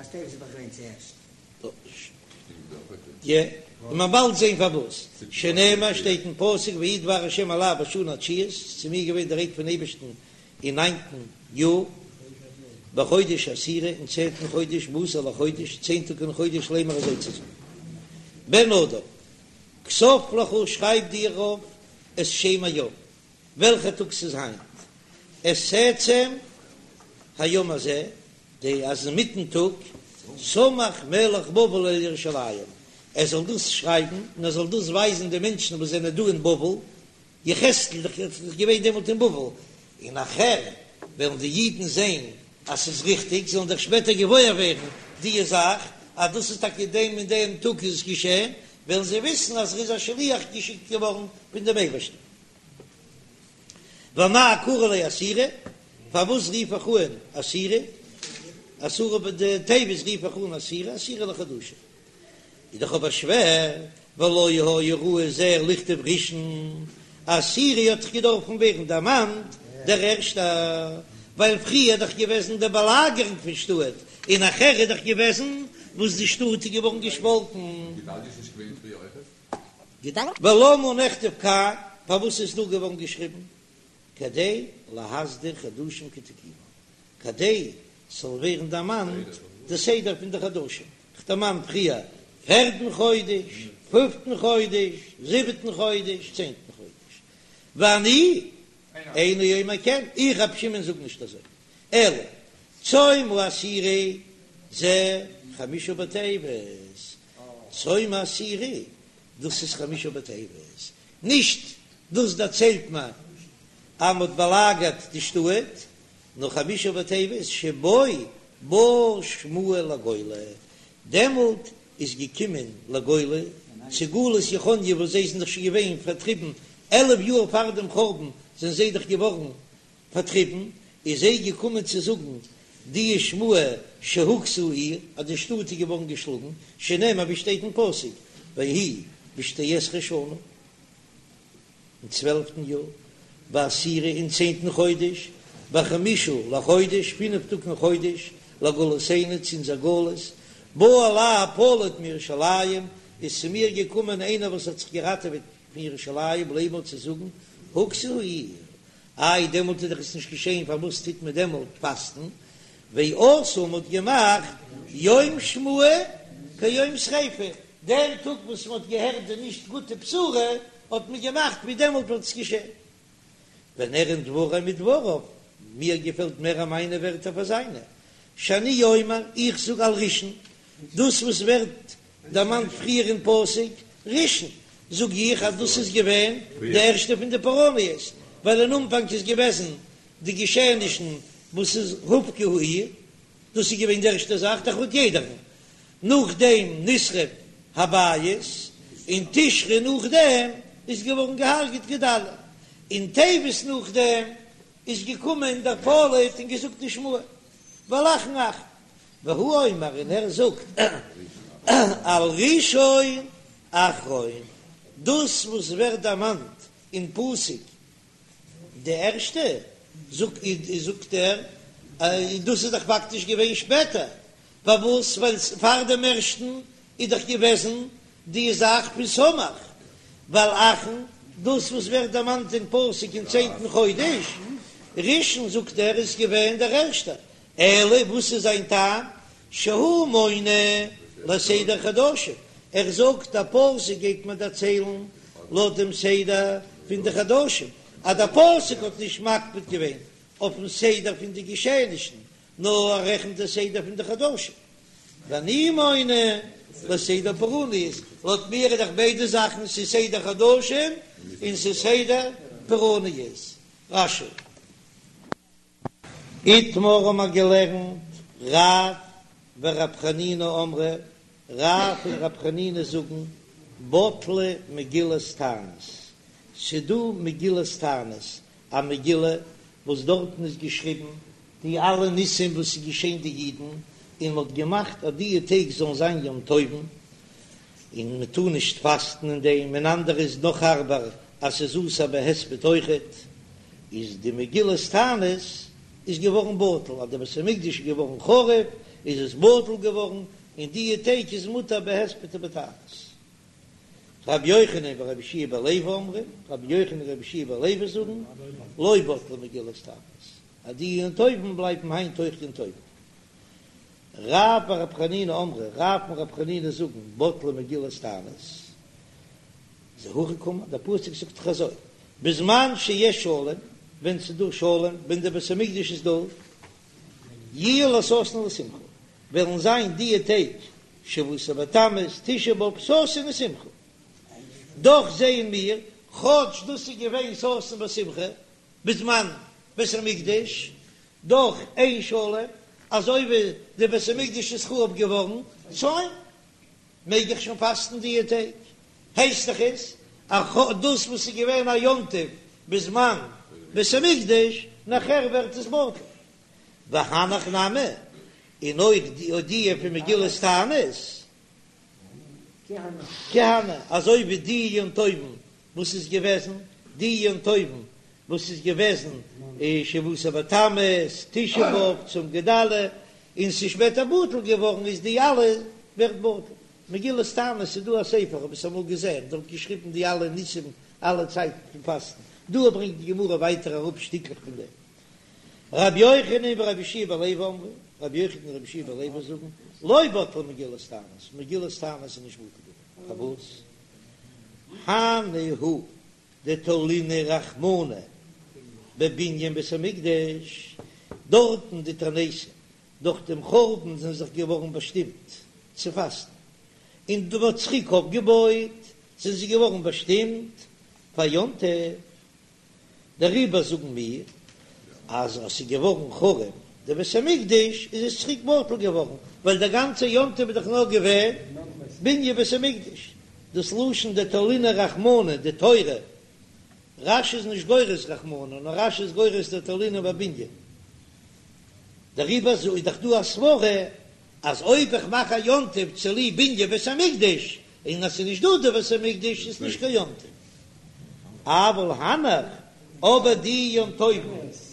יא, און מ'וועט באלד זען פארוואס. שנאמר שטייט אין פסוק ויהי דבר השם אלי בשנה התשיעית, ס'איז צו מיר געווען די רייד פון אייבערשטן אין ניינטן יאר, בחודש העשירי, אין צענטן חודש, בעשור לחודש, צען טאג אין חודש, לאמר אזוי צו זאגן. בן אדם, כתוב לך שרייב דיר אויף את שם היום, וועלכע טאג ס'איז היינט, את עצם היום הזה, די אז אינמיטן טאג, סמך מלך בבל על ירושלים, ער זאל דאס שרייבן און ער זאל דאס ווייזן די מענטשן וואס זענען דא אין בבל, יחזקאל איז דאך געווען דעמאלט אין בבל, און נאכער וועלן די אידן זען אז ס'איז ריכטיג, זאלן דאך שפעטער געוואויר ווערן די זאך אז דאס איז טאקע דעם און דעם טאג איז עס געשען, וועלן זיי וויסן אז ער איז א שליח געשיקט געווארן פון דעם אייבערשטן. ואמאי קרי ליה עשירי, פארוואס רוף איך אן עשירי? עשרה בטבת רוף איך אן עשירי, עשירי לחדשים. איז דאך אבער שווער, ולא היה ראוי זה לכתוב ראשון, עשירי האט דאך געדארפן ווערן דערמאנט דער ערשטער, ווייל פריער איז דאך געוועזן די באלאגערונג פון שטאט, און נאכער איז דאך געוועזן וואס די שטאט איז געווארן געשפאלטן. ולמה נכתב כאן, פארוואס איז דא געווארן געשריבן? כדי להסדיר חדשים כתיקונן, כדי ס'זאל ווערן דערמאנט די סדר פון די חדשים, כ'דערמאן פריער פערטן חודש, פופטן חודש, זיבעטן חודש, צענטן חודש, ואני איני אומר כן, איך רב שמעון זאג נישט אזוי, אלא צום העשירי זה חמשה בטבת, צום העשירי דאס איז חמשה בטבת, נישט דאס דערציילט מען אז מ'האט באלאגערט די שטאט, נאר חמשה בטבת שבו באה שמועה לגולה, דעמאלט איז געקומען לגולה צו גלות יכניה וואס זיי זענען דאך שוין געווען פארטריבן עלף יאר פאר דעם חורבן זענען זיי דאך געווארן פארטריבן, איז זיי געקומען צו זאגן די שמועה שהוכתה העיר אז די שטאט איז געווארן געשלאגן, שנאמר ווי שטייט אין פסוק ויהי בשתי עשרה שנה. אין צוועלפטן יאר, בעשירי אין צענטן חודש, בחמישה לחודש, פינף טאג אין חודש, לגלותנו צו אונזער גלות, בא אלי הפליט מירושלים, איז צו מיר געקומען איינער וואס האט זיך געראטעוועט פון ירושלים, לאמר צו זאגן, הוכתה העיר, איי דעמאלט איז דאך עס נישט געשען, פארוואס טוט מען דעמאלט פאסטן? ועשו מ'האט געמאכט יום שמועה כיום שריפה, דעם טאג וואס מ'האט געהערט די נישט גוטע בשורה האט מען געמאכט ווי דעמאלט וואלט עס געשען. ונראין דברי מדבריו, מיר געפעלט מער מיינע ווערטער פאר זיינע, שאני אומר, איך זאג על ראשון, דאס וואס ווערט דערמאנט פריער אין פסוק ראשון, זאג איך אז דאס איז געווען די ערשטע פון די פורעניות, ווייל אין אנפאנג איז געוועזן די געשעענישן וואס איז הובקעה העיר, דאס איז געווען די ערשטע זאך, דאך האט יעדער נאכדעם נשרף הבית, אין תשרי נאכדעם איז געווארן געהארגעט גדליה, אין טבת נאכדעם איז געקומען דער פליט און געזאגט די שמועה, ועל אחרון אחרון, והוא אומר און ער זאגט על ראשון אחרון, דאס וואס ווערט דערמאנט אין פסוק די ערשטע, זאגט ער, דאס איז דאך פאקטיש געווען שפעטער, פארוואס? ווייל פאר דעם ערשטן איז דאך געוועזן די זאך פון סמך, ועל אחרון, דאס וואס ווערט דערמאנט אין פסוק אין צענטן חודש, ראשון זאגט ער איז געווען דער ערשטער, אלא וואס איז זיין טעם? שהוא מונה לסדר חדשים, ער זאגט דער פסוק גייט מיר דערציילן לויט דעם סדר פון די חדשים, אז דער פסוק האט נישט מקפיד געווען אויפן סדר פון די געשעענישן, נאר ער רעכנט די סדר פון די חדשים. ואני מונה לסדר פורעניות, לויט מיר איז דאך ביידע זאכן, ס'איז סדר חדשים און ס'איז סדר פורעניות. רש"י. איתמר האבן מיר געלערנט רב ורב חנינא אמרי, רב און רב חנינא זאגן, בטלה מגילת תענית, ס'דא מגילת תענית, א מגילה וואס דארטן איז געשריבן די אלע ניסים וואס איז געשען די אידן, און מ'האט געמאכט אז דיע טעג זאלן זיין יום טובים, און מ'טאר נישט פאסטן אין דעם, און אנדערע איז נאך הארבער אז ס'איז אסור בהספד אויכעט, איז די מגילת תענית איז געווארן בטל, אז די בית המקדש איז געווארן חרוב איז עס בטל געווארן, און דיע טעג איז מותר בהספד ובתענית. רבי יוחנן ורבי יהושע בן לוי אומרים, רבי יוחנן און רבי יהושע בן לוי זאגן, לא בטלה מגילת תענית, אז די יום טובים בלייבן היינט אויך יום טובים. רב ורב חנינא אמרי, רב און רב חנינא זאגן, בטלה מגילת תענית, הכי קאמר, דער פסוק זאגט דאך אזוי, בזמן שיש שלום, ווען ס'איז דא שלום, ווען דער בית המקדש איז דא, יהיו לששון ולשמחה, וועלן זיין דיע טעג שבעה עשר בתמוז, תשעה באב, ששון ושמחה. דאך זעען מיר, כאטש דאס איז געווען ששון ושמחה בזמן בית המקדש, דאך אין שלום, אזוי ווי די בית המקדש איז חרוב געווארן, צום, מעג איך שוין פאסטן דיע טעג? הייסט דאך עס אז דאס וואס איז געווען א יום טוב בזמן בית המקדש, נאכער ווערט עס בטל. והנך נמי, און אויך די פון מגילת תענית, כי הני, אזוי ווי די יום טובים וואס איז געוועזן, די יום טובים וואס איז געוועזן שבעה עשר בתמוז, תשעה באב, צום גדליה, און ס'איז שפעטער בטל געווארן, איז די אלע ווערט בטל. מגילת תענית איז דא א ספר, כ'האב עס אמאל געזען, דארט געשריבן די אלע ניסים אלע צייטן פון פאסטן, דא ברענגט די גמרא ווייטער אראפ שטיקלעך פון דעם. רבי יוחנן ורבי יהושע בן לוי אמרו, רבי יוחנן און רבי יהושע בן לוי זאגן, לא בטלה מגילת תענית, מגילת תענית איז נישט בטל געווארן, פארוואס? הני הוא דתלינהו רחמנא בבנין בית המקדש, דארטן די תעניתים דורך דעם חורבן זענען זיך געווארן באשטימט צו פאסטן, און דא מ'האט צוריק אויפגעבויט זענען זיי געווארן באשטימט פאר יום טוב, דעריבער זאגן מיר אז אז ס'איז געווארן חרוב די בית המקדש איז עס צוריק בטל געווארן, ווייל דער גאנצער יום טוב איז דאך נאר געווען בנין בית המקדש, דאס לשון דתלינהו רחמנא די תורה, רש"י איז נישט גורס רחמנא נאר רש"י איז גורס דתלינהו בבנין, דעריבער איז דאך דא א סברא אז אויב איך מאך א יום טוב צוליב בנין בית המקדש, און אז ס'איז נישט דא די בית המקדש איז נישט קיין יום טוב. אבל הנך, אבער די יום טובים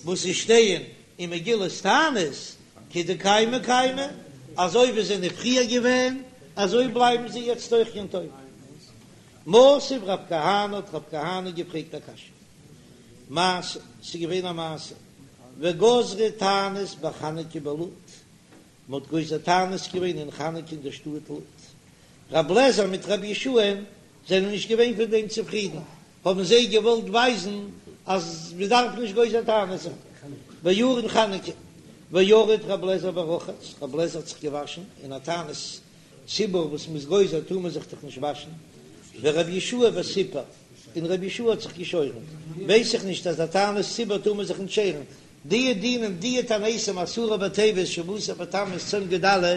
וואס עס שטייען אין מגילת תענית, כדקיימי קיימי, אזוי ווי זיי זענען פריער געווען, אזוי בלייבן זיי יעצט אויך יום טובים. מתיב רב כהנא האט רב כהנא געפרעגט א קשיא, מעשה, ס'איז געווען א מעשה, וגזרו תענית בחנוכה בלוד, מען האט גוזר תענית געווען אין חנוכה אין דער שטאט לוד. רב לעזער מיט רבי יהושע'ן זענען נישט געווען פון דעם צופרידן, האבן זיי געוואלט ווייזן אז מען דארף נישט גוזר תענית זיין. וירא אין חנוכה, וירד רב לעזער ורחץ, רב לעזער האט זיך געוואשן, אין א תענית ציבור וואס מען איז גוזר טאר מען זיך דאך נישט וואשן, ורבי יהושע וסיפר, און רבי יהושע האט זיך געשוירן, ווייס איך נישט אז א תענית ציבור טאר מען זיך נישט שערן, די דינים די תעניתים עשרה בטבת שבעה עשר בתמוז צום גדלי'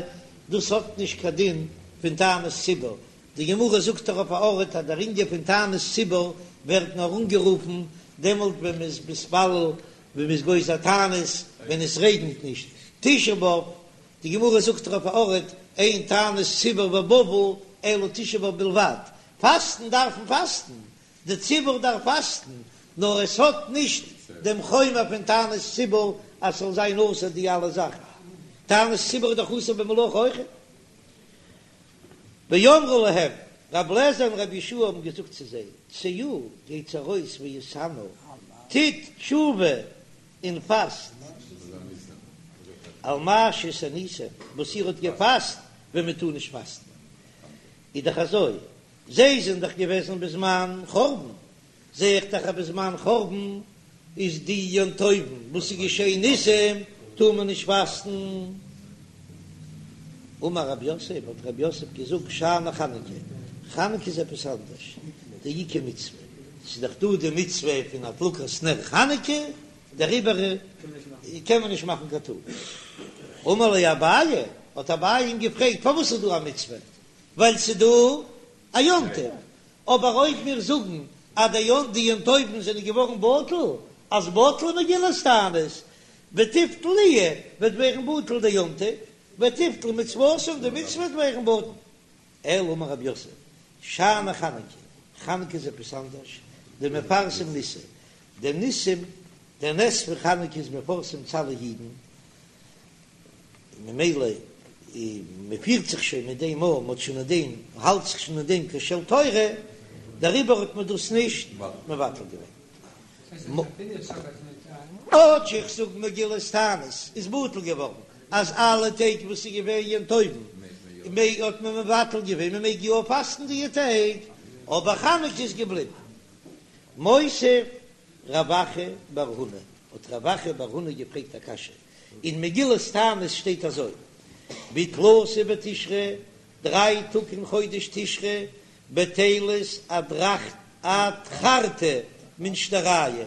דאס האט נישט קיין דין פון תענית ציבור, די גמרא זאגט דאך אויף א ארט אז דער ענין פון תענית ציבור ווערט נאר אנגערופן דעמאלט ווען מען איז מתפלל ווען מען איז גוזר תענית ווען עס רעגנט נישט תשעה באב, די גמרא זאגט דאך אויף א ארט אין תענית ציבור בבבל אלא תשעה באב בלבד, פאסטן דארף מען פאסטן, די ציבור דארף פאסטן, נאר עס האט נישט דעם חומר פון תענית ציבור אז ס'זאל זיין אסור די אלע זאכן, תענית ציבור איז דאך אסור במלאכה אויכעט. ואמרו להם, רב לעזער און רבי יהושע האבן געזאגט צו זיי, צאו, גייטס ארויס והתענו, טוט תשובה און פאסט, על מה שהתעניתם, וואס איר האט געפאסט ווען מען טאר נישט פאסטן. איז דאך אזוי, זיי זענען דאך געוועזן בזמן חורבן, זע איך דאך אז בזמן חורבן איז די יום טובים וואס איז געשען ניסים טאר מען נישט פאסטן. אמר רב יוסף, האט רב יוסף געזאגט, שאני חנוכה, חנוכה איז עפעס אנדערש, דאיכא מצוה, ס'איז דאך דא די מצוה פון הדלקת נר חנוכה, דעריבער קען מען נישט מאכן קיין טעות. אמר ליה אביי, האט אביי אים געפרעגט, פארוואס איז דא א מצוה? ווייל ס'איז דא א יום טוב, אבער אויב מיר זאגן אז די יום די יום טובים זענען געווארן בטל, אז בטלה מגילת תענית, ותיבטל איהי, וועט ווערן בטל די יום טוב, ותיבטל מצותם, די מצוה וועט ווערן בטל. אלא אמר רב יוסף, שאני חנוכה, חנוכה איז עפעס אנדערש, דמפרסם ניסא, די ניסים, דער נס פון חנוכה איז מפורסם צו אלע אידן, ממילא מען פירט זיך שוין מיט דעם אן, מען האט שוין אין דעם, האלט זיך שוין אין דעם כשל תורה, דעריבער האט מען דאס נישט מבטל געווען. כאטש איך זאג מגילת תענית איז בטל געווארן, אז אלע טעג וואס איז געווען יום טובים האט מען מבטל געווען, מען מעג יא פאסטן די טעג, אבער חנוכה איז געבליבן. מותיב רב אחא בר הונא, האט רב אחא בר הונא געפרעגט א קשיא, אין מגילת תענית שטייט אזוי, בתלתא בתשרי, דריי טאג אין חודש תשרי, בטילת אדכרתא מן שטרייא,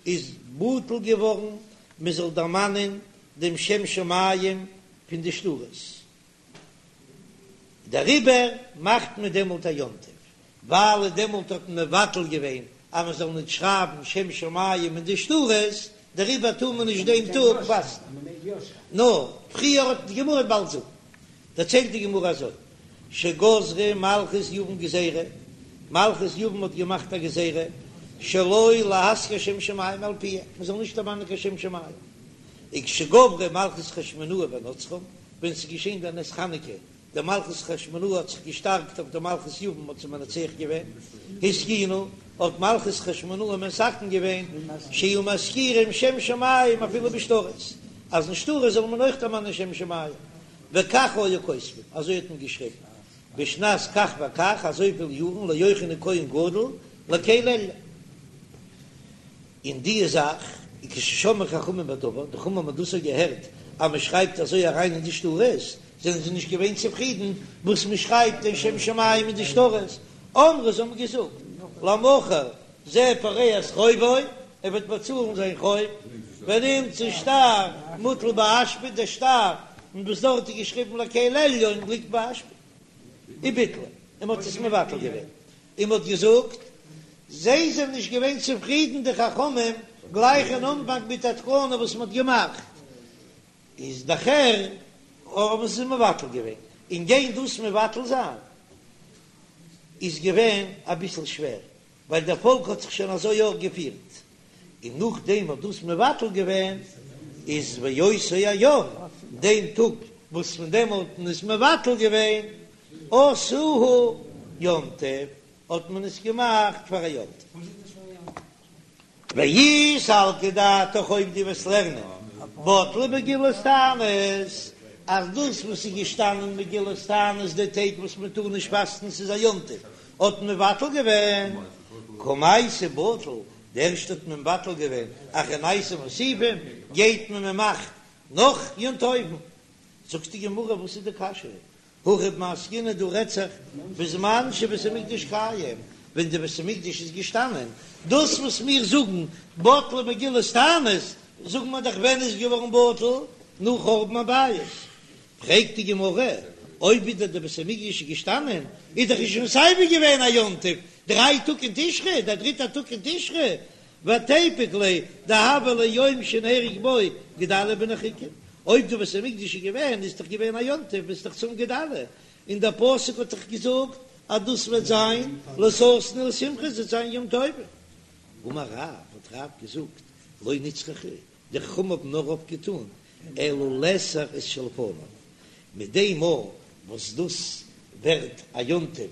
איז בטל געווארן מען זאל דערמאנען דעם שם שמים פון די שטרות, דעריבער מאכט מען דעמאלט א יום טוב, ווייל דעמאלט האט מען מבטל געווען אז מען זאל ניט שרייבן שם שמים אין די שטרות, דעריבער טאר מען נישט דעם טאג פאסטן. נאר פריער האט די גמרא באלד זאגן, דערציילט די גמרא אזוי, שגזרה מלכות יוון גזירה, מלכות יוון האט געמאכט א גזירה, שלא להזכיר שם שמים על פיהם, מען זאל נישט דערמאנען קיין שם שמים, וכשגברה מלכות חשמונאי ונצחום, ווען ס'איז געשען דער נס חנוכה. די מלכות חשמונאי האט זיך געשטארקט אויף די מלכות יוון האט זי מנצח געווען, התקינו, האט מלכות חשמונאי מתקן געווען שיהו מזכירים שם שמים אפילו בשטרות, אז אין שטרות זאל מען אויך דערמאנען שם שמים, וכך היו כותבים, אזוי האט מען געשריבן, בשנת כך וכך, אזויפיל יארן, ליוחנן כהן גדול, לקל עליון. און די זאך, וכששמעו חכמים בדבר, די חכמים האבן דאס אויך געהערט אז מען שרייבט אזוי אריין אין די שטרות, זענען זיי נישט געווען צופרידן וואס מען שרייבט דעם שם שמים אין די שטרות, אמרו זיי האבן געזאגט, למחר זה פורע את חובו, ער וועט באצאלן זיין חוב, ונמצא שטר מוטל באשפה, דער שטר וואס דארט איז געשריבן לקל עליון ליגט באשפה, וביטלו, און מען האט עס מבטל געווען, און מען האט געזאגט, זיי זענען נישט געווען צופרידן די חכמים גלייך אין אנפאנג מיט א תקנה וואס מען האט געמאכט, איז נאכער האבן זיי מבטל געווען, און גיין דאס מבטל זיין איז געווען אביסל שווער, ווייל דער פאלק האט זיך שוין אזוי אויך געפירט, און נאכדעם האט דאס מבטל געווען איז ואותו היום, דעם טאג וואס פון דעם האט מען עס מבטל געווען, עשאוהו יום טוב, האט מען עס געמאכט פאר א יום טוב. ואי סלקא דעתך אויב דו וועסט לערנען בטלה מגילת תענית, אז דאס וואס איז געשטאנען אין מגילת תענית די טעג וואס מען טאר נישט פאסטן ס'איז א יום טוב האט מען מבטל געווען, קמייתא בטל, די ערשטע האט מען מבטל געווען, אחרנייתא מוסיפין, גייט מען מען מאכט נאך יום טובים. זאגט די גמרא וואס איז די קשיא? הכא במאי עסקינן דא רעדט זיך בזמן שבית המקדש קיים, ווען די בית המקדש איז געשטאנען, דאס וואס מיר זאגן בטלה מגילת תענית, זאגן מיר דאך ווען איז געווארן בטל, נאך חורבן הבית, פרעגט די גמרא, אויב ווידער די בית המקדש איז געשטאנען, איז דאך שוין סייווי געווען א יום טוב, דריי טאג אין תשרי, דער דריטער טאג אין תשרי, ותיפוק ליה דהוה ליה יום שנהרג בו גדליה בן אחיקם, אויב די בית המקדש איז געווען איז דאך געווען א יום טוב איז דאך צום גדליה, און דער פסוק האט דאך געזאגט אז דאס וועט זיין לששון ולשמחה עס וועט זיין יום טובים. אמר רב, האט רב געזאגט, לא נצרכה, די חכמים האבן נאר אויפגעטאן אלא לאסור את שלפניו, מיט דעם מאל וואס דאס ווערט א יום טוב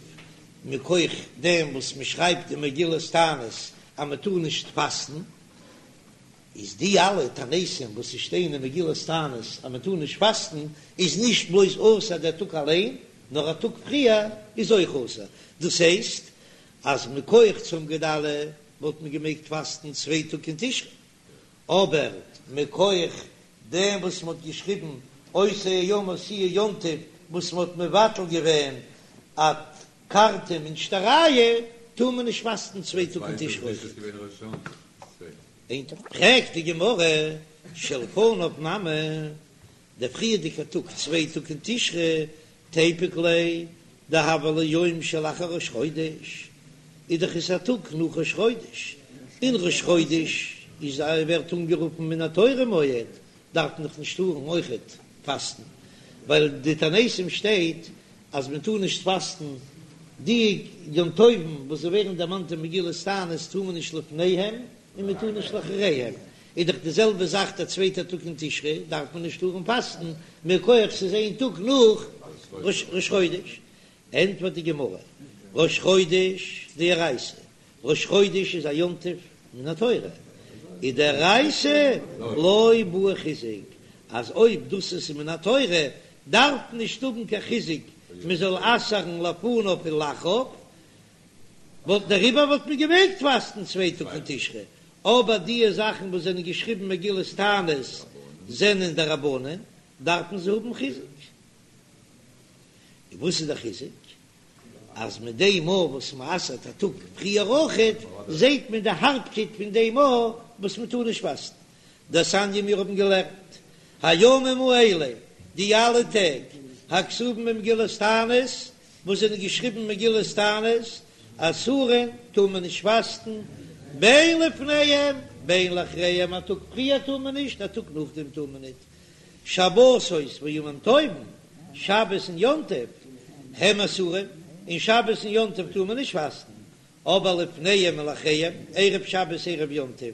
מכח דעם וואס מען שרייבט אין מגילת תענית אז מען טאר נישט פאסטן, איז די אלע תעניתים וואס ס'שטייען אין מגילת תענית אז מען טאר נישט פאסטן איז נישט בלויז אסור דער טאג אליין, נאר א טאג פריער איז אויך אסור, דאס הייסט אז מכח צום גדליה וואלט מען געמעגט פאסטן צוויי טאג אין תשרי, אבער מכח דעם וואס מ'האט געשריבן אותו היום עשאוהו יום טוב וואס מ'האט מבטל געווען אדכרתא מן שטרייא טאר מען נישט פאסטן צוויי טאג אין תשרי. פרעגט די גמרא, שלפניו נמי, דער פריערדיגער טאג צוויי טאג אין תשרי, תיפוק ליה דהוה ליה יום שלאחר ראש חודש, איז דאך עס א טאג נאך ראש חודש, און ראש חודש איז א ווערט אנגערופן מן התורה מועד, דארף מען דאך נישט טארן אויכעט פאסטן, ווייל די תעניתים שטייט אז מען טאר נישט פאסטן די יום טובים וואס זיי ווערן דערמאנט אין מגילת תענית טאר מען נישט לפניהם און מען טאר נישט לאחריהם, איז דאך די זעלבע זאך דער צווייטער טאג אין תשרי דארף מען נישט טארן פאסטן מכח ס'איז איין טאג נאך ראש חודש. ענטפערט די גמרא, ראש חודש דאורייתא, ראש חודש איז א יום טוב מן התורה, איז דאורייתא לא בעי חיזוק, אז אויב דאס איז מן התורה דארף נישט האבן קיין חיזוק מען זאל אסר'ן לפניו ולאחריו, וואלט דעריבער וואלט מען געמעגט פאסטן צוויי טאג אין תשרי, אבער דיע זאכן וואס זענען געשריבן מגילת תענית זענען דרבנן, דארפן זיי האבן חיזוק. און וואס איז דער חיזוק? אז מיט דעם מאל וואס מען אסר'ט א טאג פריער אויכעט, זעט מען די הארבקייט פון דעם מאל וואס מען טאר נישט פאסטן. דתניא מיר האבן געלערנט הימים האלה, די אלע טעג, הכתובים במגילת תענית, וואס זענען געשריבן מגילת תענית, אסורין, טאר מען נישט פאסטן, בין לפניהם בין לאחריהם, א טאג פריער טאר מען נישט, א טאג נאכדעם טאר מען ניט, שבתות וימים טובים, שבת און יום טוב, הם אסורים, אין שבת און יום טוב טאר מען נישט פאסטן, אבער לפניהם ולאחריהם, ערב שבת ערב יום טוב,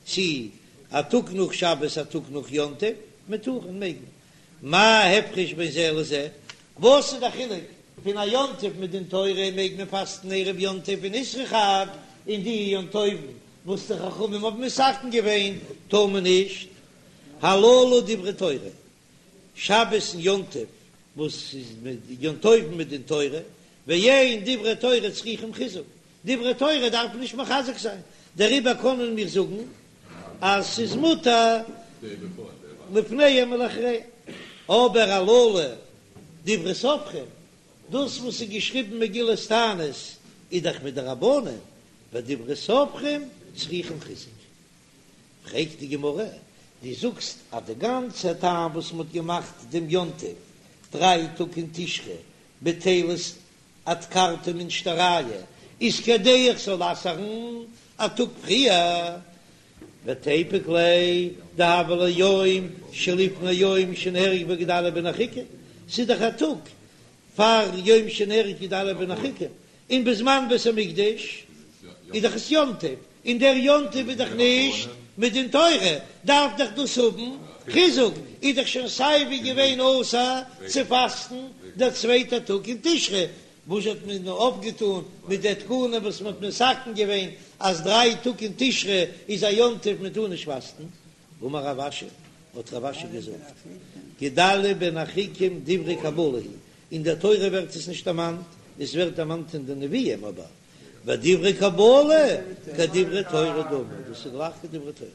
צי א טאג נאך שבת א טאג נאך יום טוב, מותרין, מעג מען. מה הפרש בין זה לזה? וואס איז די חילוק פון א יום טוב מדין תורה מעג מען פאסטן ערב יום טוב און אסרו חג, און די יום טובים וואס די חכמים האבן מתקן געווען טאר מען נישט? הללו דברי תורה, שבת און יום טוב וואס איז יום טובים מדין תורה, ואין דברי תורה צריכים חיזוק, דברי תורה דארף מען נישט מחזק זיין, דעריבער קענען מיר זאגן אז ס'איז מותר לפניהם ולאחריהם, אבער הללו דברי סופרים, דאס וואס איז געשריבן מגילת תענית איז דאך מדרבנן, ודברי סופרים צריכים חיזוק. פרעגט די גמרא, דו זאגסט אז די גאנצע טעם וואס מ'האט געמאכט דעם יום טוב דריי טאג אין תשרי בטילת אדכרתא מאינשטרייהו איז כדי איך זאל אסר'ן א טאג פריער, ותיפוק ליה דהוה ליה יום שלפני יום שנהרג בו גדליה בן אחיקם, ס'איז דאך א טאג פאר יום שנהרג גדליה בן אחיקם, און בזמן בית המקדש איז דאך עס יום טוב, און דער יום טוב איז דאך נישט מדין תורה, דארף דאך דאס האבן חיזוק, איז דאך שוין סיי ווי געווען אסור צו פאסטן דער צווייטער טאג אין תשרי, וואס האט מען אויפגעטאן מיט דער תקנה וואס מען האט מתקן געווען אז דריי טאג אין תשרי איז א יום טוב מען טאר נישט פאסטן? אמר רב אשי, האט רב אשי געזאגט, גדליה בן אחיקם דברי קבלה היא, אין דער תורה ווערט עס נישט דערמאנט, עס ווערט דערמאנט אין די נביאים אבער, ודברי קבלה כדברי תורה דמו, דאס איז גלייך כדברי תורה.